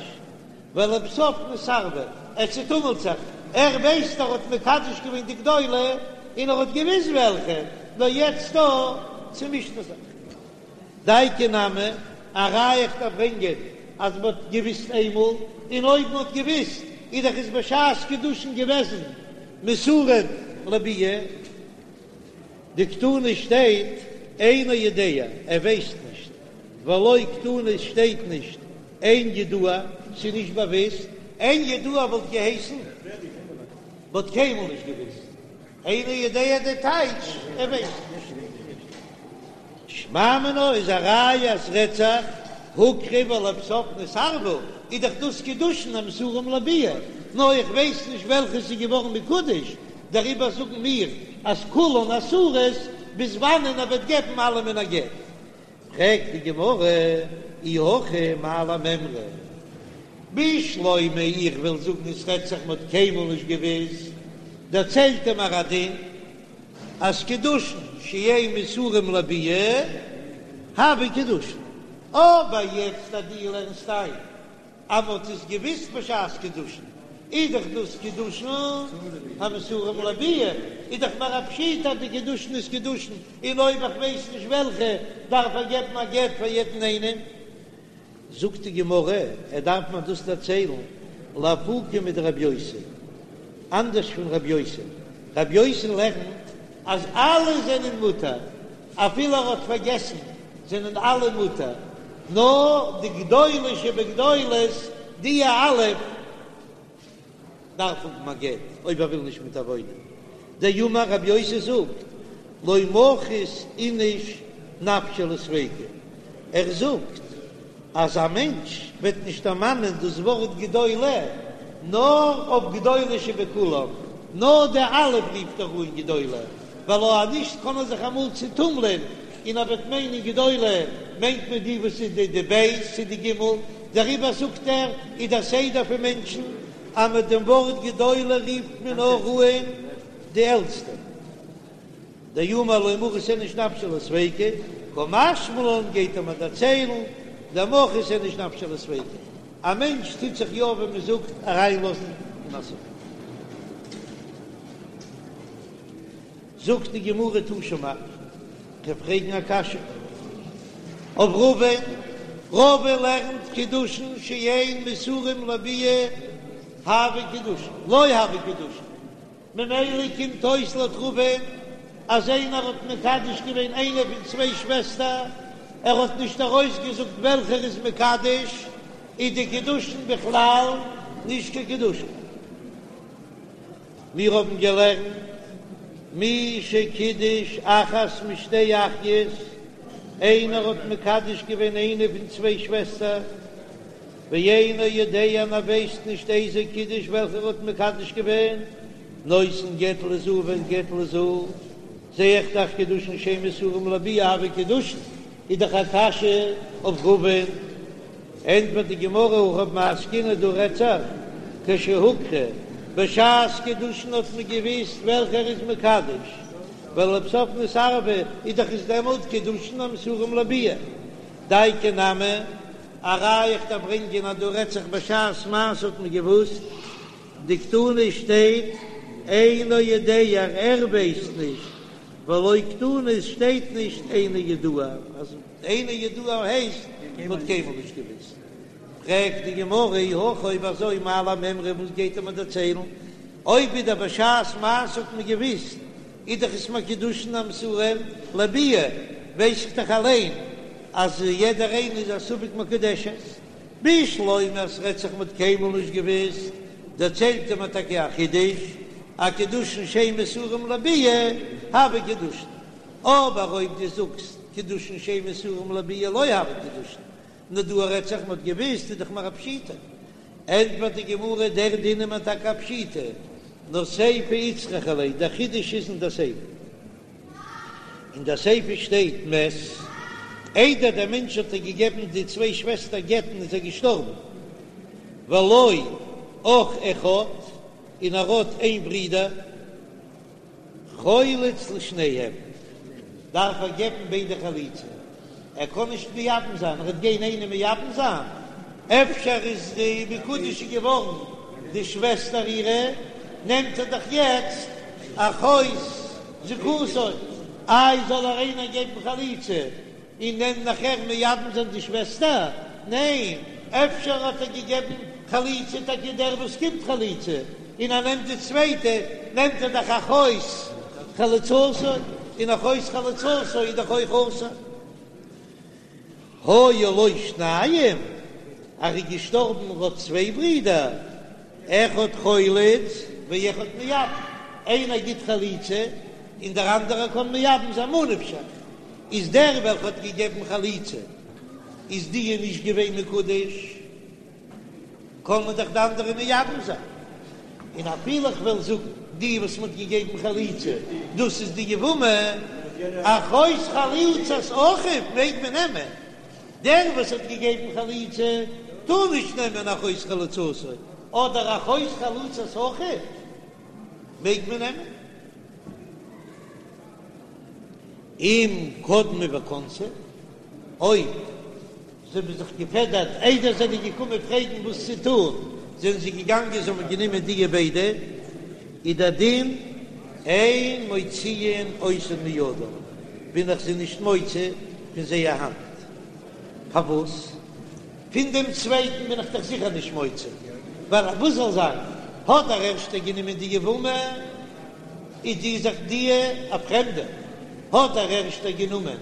ולבסוף נתערבו, ער צוטומלט זיך, ער ווייסט ער האט מקדש געווען די גדולה און ער האט געוויסט וועלכע, נאר יעצט דא צומישט ער זיך. דייקא נמי, א ראיה איך דארף ברענגען אז מען האט געוויסט איינמאל, און אויב מען האט געוויסט איז דאך עס בשעת קידושין געוועזן מסורין לביאה. דקתני שטייט אינו יודע, ער ווייסט נישט, ולא קתני שטייט נישט אין ידוע, ס'איז נישט באוויסט, אין ידוע וואלט געהייסן מ'האט קיינמאל נישט געוויסט, אינו יודע די טייטש ער ווייסט נישט. שמע מינה איז א ראיה אז ס'רעדט זיך הוכרו ולבסוף נתערבו, איז דאך דאס קידושין המסורים לביאה, נאר איך ווייס נישט וועלכע ס'איז געווארן מקודש, דעריבער זאגן מיר אז כולן אסורות ביז וואנען ער וועט געבן אלעמען א גט. פרעגט די גמרא, אי הכי מאי למימרא? בשלמא איך וויל זאגן עס רעדט זיך מ'האט קיינמאל נישט געוויסט, דערציילט ער מיר א דין אז קידושין שאין מסורים לביאה הוו קידושין, אבער יעצט אז דו לערנסט איין אז מ'האט עס געוויסט בשעת קידושין, איז דאך דאס קידושין המסורים לביאה, איז דאך מיר א פשיטא אז די קידושין איז קידושין, און אויב איך ווייס נישט וועלכע, דארף ער געבן א גט פאר יעדן איינעם. זאגט די גמרא, ער דארף מיר דאס דערציילן לאפוקי מדרבי יוסי, אנדערש פון רבי יוסי, רבי יוסי לערנט אז אלע זענען מותר, אפילו ער האט פארגעסן זענען אלע מותר, נאר די גדולה שבגדולות די א' דארף האבן א גט אויב ער וויל נישט מיט איר וואוינען. דאמר רבי יוסי זאגט לא מחית איניש נפשיה לספיקא, ער זאגט אז א מענטש וועט נישט דערמאנען דאס ווארט גדולה נאר אויף גדולה שבכולם, נאר די א' רופט ער אן גדולה, ווייל אויב נישט קען ער זיך אמאל צוטומלען און ער וועט מיינען גדולה מיינט מען די וואס איז די די ב' צו די ג'. דעריבער זאגט ער, איז דער סדר פון מענטשן אז מיט דעם ווארט גדולה רופט מען נאר אן די עלטסטע. דאמר לא מחית איניש נפשיה לספיקא, קא משמע לן גייט ער מיר דערציילן, דמחית איניש נפשיה לספיקא, א מענטש טוט זיך יא ווי מען זאגט אריינלאזן אין א ספק. זאגט די גמרא תא שמע, כ'וועל פרעגן א קשיא אויף רבא'ן, רבא לערנט קידושין שאין מסורים לביאה הוו קידושין, לא הוו קידושין, ממילא קומט אויס לויט רבא'ן אז איינער האט מקדש געווען איינע פון צוויי שוועסטער, ער האט נישט ארויסגעזאגט וועלכער איז מקדש, איז די קידושין בכלל נישט קיין קידושין. מיר האבן געלערנט מי שקידש אחת משתי אחיות, איינער האט מקדש געווען איינע פון צוויי שוועסטער, ואינו יודע און ער ווייסט נישט איזו קידש וועלכער האט מקדש געווען, נותן גט לזו וגט לזו, זע איך דאך קידושין שאין מסורים לביאה הוו קידושין, איז דאך א קשיא אויף רבא'ן. ענטפערט די גמרא הכא במאי עסקינן דא רעדט זיך כשהוכרו, בשעת קידושין האט מען געוויסט וועלכער איז מקדש, ולבסוף נתערבו איז דאך עס דעמאלט קידושין המסורים לביאה, דייקא נמי א ראיה איך דארף ברענגען אז דא רעדט זיך בשעת מעשה האט מען געוואוסט, דקתני שטייט אינו יודע ער ווייסט נישט, ולא קתני שטייט נישט אינו ידוע, אז אינו ידוע הייסט מען האט קיינמאל נישט געוואוסט. פרעגט די גמרא אי הכי אויב אזוי מאי למימרא וואס גייט ער מיר דערציילן, אויב ווידער בשעת מעשה האט מען געוואוסט איז דאך עס קידושין המסורים לביאה, ווייס איך דאך אליין אז יעדער איינער איז א ספק מקודשת. בשלמא אז ס'רעדט זיך מ'האט קיינמאל נישט געוואוסט, דערציילט ער מיר טאקע א חידוש, אז קידושין שאין מסורים לביאה הוו קידושין, אבער אויב דו זאגסט קידושין שאין מסורים לביאה לא הוו קידושין, נאר דא רעדט זיך מ'האט געוואוסט איז דאך מיר א פשיטא. ענטפערט די גמרא, דער דין איז מיר טאקע א פשיטא, נאר סיפא איצטריכא ליה, דער חידוש איז אין דער סיפא. אין דער סיפא שטייט מת, איידער דער מענטש האט איר געגעבן די צוויי שוועסטער גט'ן איז ער געשטארבן, ולו אח אחד, און ער האט איין ברודער. חולץ לשניהם, דארף ער געבן ביידע חליצה, ער קען נישט מייבם זיין, ער וועט גיין איינעם מייבם זיין, אפשר איז די מקודשת געווארן די שוועסטער אירע, נעמט ער דאך יעצט אחות זיקתו, איי זאל ער איינער געבן חליצה און נעם נאכער מייבם זיין די שוועסטער? ניין, אפשר האט ער געגעבן חליצה טאקע דער וואס קומט חליצה, און ער נעמט די צווייטע, נעמט ער דאך אחות חלוצתו, און אחות חלוצתו איז דאך אויך אסור. היו לו שניים, ער איז געשטארבן ער האט צוויי ברידער, אחד חולץ ואחד מייבם, איינער גיט חליצה און דער אנדערער קען מייבם זיין, ממה נפשך, איז דער וועלכע האט געגעבן חליצה איז די נישט געווען מקודש, קען מען דאך די אנדערע מייבם זיין, און אפילו איך וועל זאגן די וואס מען האט געגעבן חליצה דאס איז די יבמה, אחות חלוצת אחיו מעג מען נעמען, דער וואס האט געגעבן חליצה טאר נישט נעמען אחות חלוצתו, אדער אחות חלוצת אחיו מעג מען נעמען. אם קדמו וכנסו, אויב זיי האבן זיך געפעדערט איידער זיי זענען געקומען פרעגן וואס צו טון, זענען זיי געגאנגען זיי האבן גענומען דיע ביידע, איז דער דין אין מוציאין אותן מידם, בין איך זיי נישט מוציא פון זייער האנט. פארוואס? פון דעם צווייטן בין איך דאך זיכער נישט מוציא, ווייל וואס זאל זיין, האט דער ערשטער גענומען די יבמה, איז די זיך די א פרעמדע, האט דער ערשטער גענומען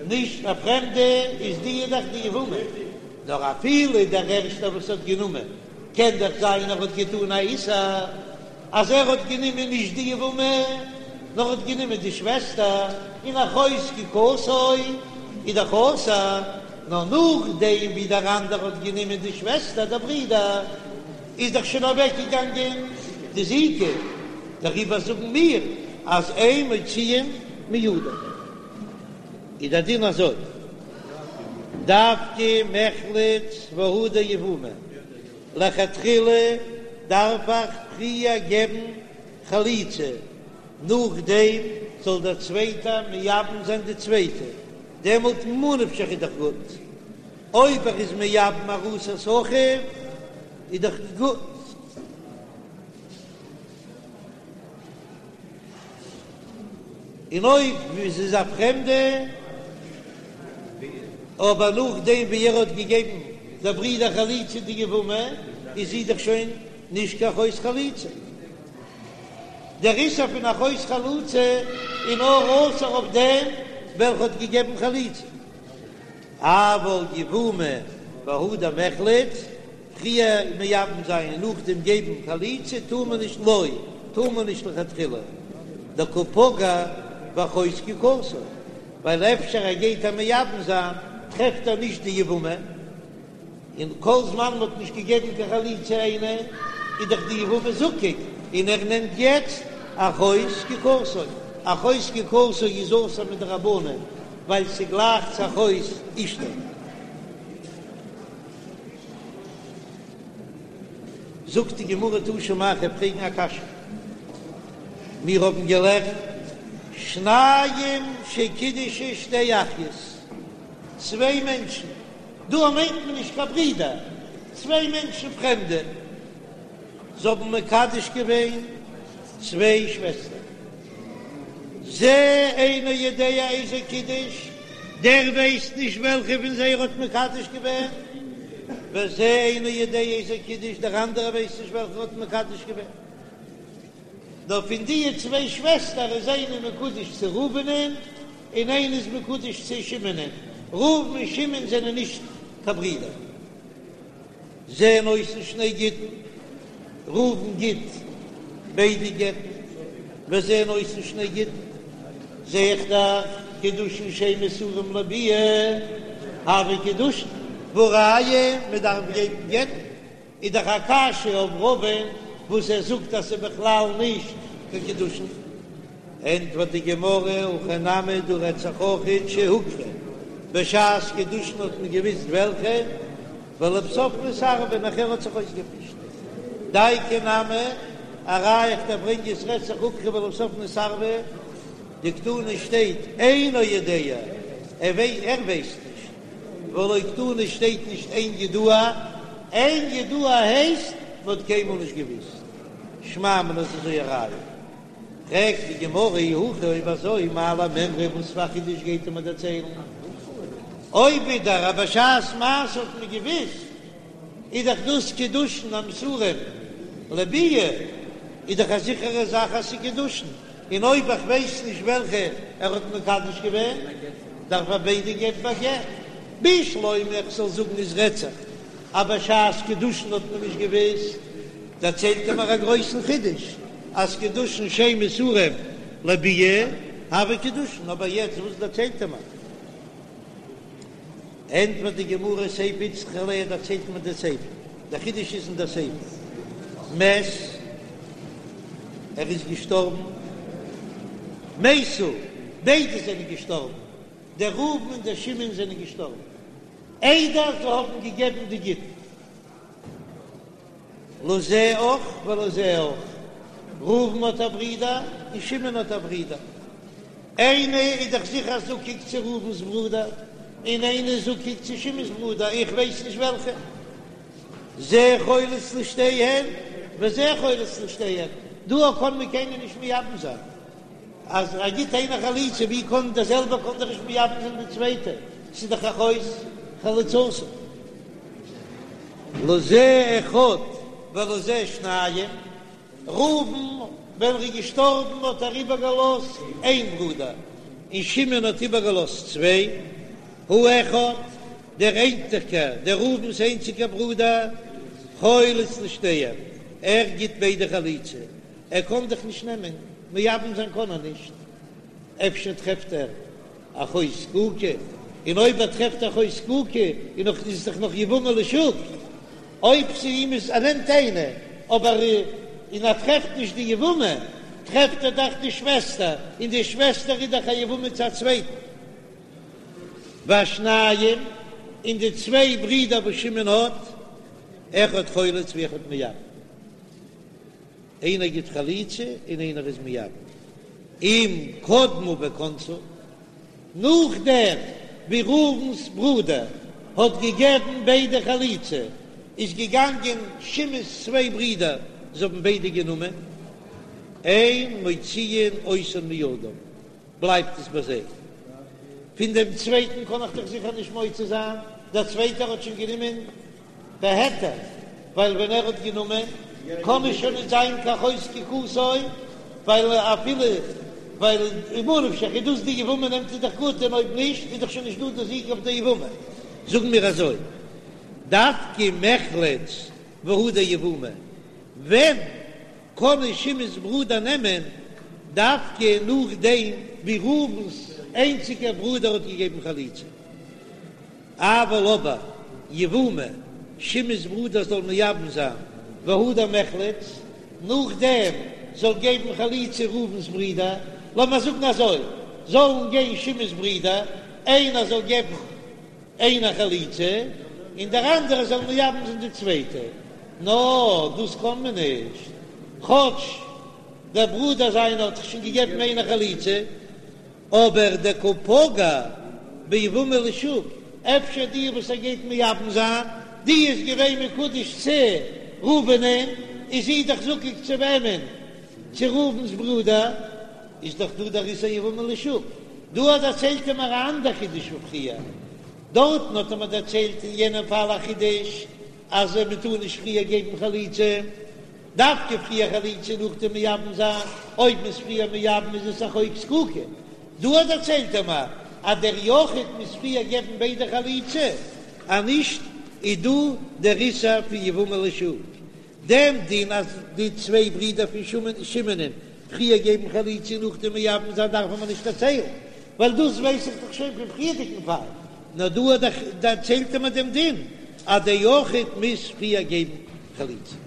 נישט א פרעמדע, איז די דאך די יבמה, נאר אפילו דער ערשטער וואס האט גענומען, קען דאך זיין ער האט געטאן א איסור, אז ער האט גענומען נישט די יבמה, נאר האט גענומען די שוועסטער, און אחות זקוקתו איז דאך אסור, נאר נאכדעם ווי דער אנדערע האט גענומען די שוועסטער, דער ברודער, איז דאך שוין אוועקגעגאנגען די זיקה, דעריבער זאגן מיר אז אין מוציאין מידו. איז דער דין אזוי. דווקא מיחלץ והדר יבומי, לכתחילה דארף איך פריער געבן חליצה, נאכדעם זאל דער צווייטער מייבם זיין די צווייטע, דעמאלט ממה נפשך איז דאך גוט, אויב ער איז מייבם ארוסת אחיו איז דאך גוט. און אויב עס איז א פרעמדע, אבער נאכדעם ווי ער האט געגעבן דער ברודער חליצה די יבמה, איז זי דאך שוין נישט קיין אחות חלוצה. דער איסור פון אחות חלוצה איז נאר אסור אויף דעם וועלכע האט געגעבן חליצה. אבל יבומי והדר מיחלץ, פריער מייבם זיין און נאכדעם געבן חליצה טאר מען נישט לא, טאר מען נישט לכתחילה, דקא פגע באחות זקוקתו, ווייל אפשר ער גייט איר מייבם זיין טרעפט ער נישט די יבמה, און כל זמן מען האט נישט געגעבן קיין חליצה איינע איז דאך די יבמה זקוק, און ער נעמט יעצט אחות זקוקתו, אחות זקוקתו איז אסור מדרבנן ווייל ס'גלייך צו אחות אשתו. זאגט די גמרא תא שמע כ'וועל פרעגן א קשיא, מיר האבן געלערנט שניים שקידשו שתי אחיות, צוויי מענטשן, דא מיינט מען נישט קיין ברידער, צוויי מענטשן פרעמדע, זיי האבן מקדש געווען צוויי שוועסטער, זה אינו יודע איזו קידש, דער ווייסט נישט וועלכע פון זיי ער האט מקדש געווען, וזה אינו יודע איזו קידש, דער אנדערער ווייסט נישט וועלכע ער האט מקדש געווען. נאר פון די צוויי שוועסטער איז איינע מקודש צו ראובנ'ען און איינע איז מקודש צו שמעונ'ען, ראובן און שמעון זענען נישט קיין ברידער. זה נותן שני גיטין, ראובן גיט ביידע גט'ן, וזה נותן שני גיטין, זע איך דאך קידושין שאין מסורים לביאה, הוו קידושין, והא ראיה מען דארף געבן גט'ן, איז דאך א קשיא אויף רבא'ן וואס ער זאגט אז ס'איז בכלל נישט קיין קידושין. ענטפערט די גמרא, הכא נמי דא רעדט זיך אויכעט שהוכרו, בשעת קידושין האט מען געוויסט וועלכע, ולבסוף נתערבו, נאכער האט זיך אויסגעמישט. דייקא נמי, א ראיה איך דיר ברענגען עס רעדט זיך הוכרו ולבסוף נתערבו, דקתני שטייט אינו יודע, ער ווייסט נישט, ולא קתני שטייט נישט אין ידוע, אין ידוע הייסט מען האט קיינמאל נישט געוויסט, שמע מינה איז אזוי א ראיה. פרעגט די גמרא אי הכי אויב אזוי מאי למימרא וואס פאר א חידוש גייט ער מיר דערציילן? אויב ווידער אז בשעת מעשה האט מען געוויסט איז דאך דאס קידושין המסורים לביאה איז דאך א זיכערע זאך אז ס'איז קידושין, און אויב איך ווייס נישט וועלכע ער האט מקדש געווען דארף ער ביידע געבן א גט, בשלמא איך זאל זאגן עס רעדט זיך אז בשעת קידושין האט מען נישט געוויסט, דערציילט ער מיר א גרויסן חידוש אז קידושין שאין מסורים לביאה הוו קידושין, אבער יעצט וואס דערציילט ער מיר? ענטפערט די גמרא סיפא איצטריכא ליה דערציילט מיר די סיפא, דער חידוש איז אין דער סיפא, מת ער איז געשטארבן, מתו ביידע זענען געשטארבן, דער ראובן און דער שמעון זענען געשטארבן איידער זיי האבן געגעבן די גיטין. לזה אח ולזה אח, ראובן האט א ברודער און שמעון האט א ברודער, איינער איז דאך זיכער זקוק צו ראובן'ס ברודער, און איינער איז זקוק צו שמעון'ס ברודער, איך ווייס נישט וועלכע. זה חולץ לשתיהן וזה חולץ לשתיהן, דא קען מען קיינער נישט מייבם זיין. אז ער גיט איינער חליצה, ווי קען דער זעלבער קען דאך נישט מייבם זיין די צווייטע, ס'איז דאך אחות חלוצתו. לזה אחד ולזה שניים, ראובן ווען ער איז געשטארבן האט ער איבערגעלאזט איין ברודער, און שמעון האט איבערגעלאזט צוויי, האחד, דער איינציגער, דער ראובן'ס איינציגער ברודער, חולץ לשתיהן, ער גיט ביידע חליצה, ער קען דאך נישט נעמען, מייבם זיין קען ער נישט, אפשר טרעפט ער אחות זקוקה, און אויב ער טרעפט אחות זקוקה איז נאך איז דאך נאך יבמה לשוק, אויב צו אים איז ער נעמט איינע, אבער און ער טרעפט נישט די יבמה, טרעפט ער דאך די שוועסטער, און די שוועסטער איז דאך א יבמה צו א צווייטן. והשניים. און די צוויי ברידער וואס שמעון האט, אחד חולץ ואחד מייבם, איינער גיט חליצה און איינער איז מייבם, אם קדמו וכנסו, נאכדעם ווי ראובן'ס ברודער האט געגעבן ביידע חליצה, איז געגאנגען שמעון'ס צוויי ברידער, זיי האבן ביידע גענומען, אין מוציאין אותן מידם, בלייבט עס ביי זיי. פון דעם צווייטן קען איך דאך זיכער נישט מוציא זיין, דער צווייטער האט שוין גענומען בהיתר, ווייל ווען ער האט גענומען קען עס שוין נישט זיין קיין אחות זקוקתו, ווייל אפילו ווייל ממה נפשך איז דאס די יבמה נעמט איז דאך גוט און אויב נישט איז דאך שוין נישט דא די זיקה אויף די יבמה. זאגן מיר אזוי, דווקא מיחלץ והדר יבומי, ווען קען עס שמעון'ס ברודער נעמען דווקא נאכדעם ווי ראובן'ס איינציגער ברודער האט געגעבן חליצה. אבל אבער יבומי, שמעון'ס ברודער זאל מייבם זיין והדר מיחלץ, נאכדעם זאל געבן חליצה ראובן'ס ברודער, לאמיר זאגן אזוי, זאלן גיין שמעון'ס ברודער, איינער זאל געבן איינער חליצה, און דער אנדערער זאל מייבם זיין די צווייטע, נאר דאס קען מען נישט, כאטש דער ברודער זיינער האט דאך שוין געגעבן איינער חליצה, אבער דקא פגע ביבמה לשוק, אפשר די וואס ער גייט מייבם זיין, די איז געווען מקודש צו ראובנ'ען, איז זי דאך זקוק צו וועמען? צו ראובן'ס ברודער, איז דאך דא דער איסור יבמה לשוק. דא דערציילט ער מיר א אנדער חידוש פון פריער, דארטן האט ער מיר דערציילט אין יענעם פאל א חידוש אז מען טאר נישט פריער געבן חליצה, דווקא פריער חליצה נאכדעם מייבם זיין, אויב מ'איז פריער מייבם איז עס אחות זקוקה. דא דערציילט ער מיר אז דער יחיד מוז פריער געבן ביידע חליצה, אז נישט איז דא דער איסור פון יבמה לשוק. דעם דין אז די צוויי ברידער פון שמעונ'ען פריער געבן חליצה און נאכדעם מייבם זיין דארף מען נישט דערציילן, ווייל דאס ווייס איך דאך שוין פון פריערדיגן פאל, נאר דא דערציילט ער מיר דעם דין אז דער יחיד מוז פריער געבן חליצה.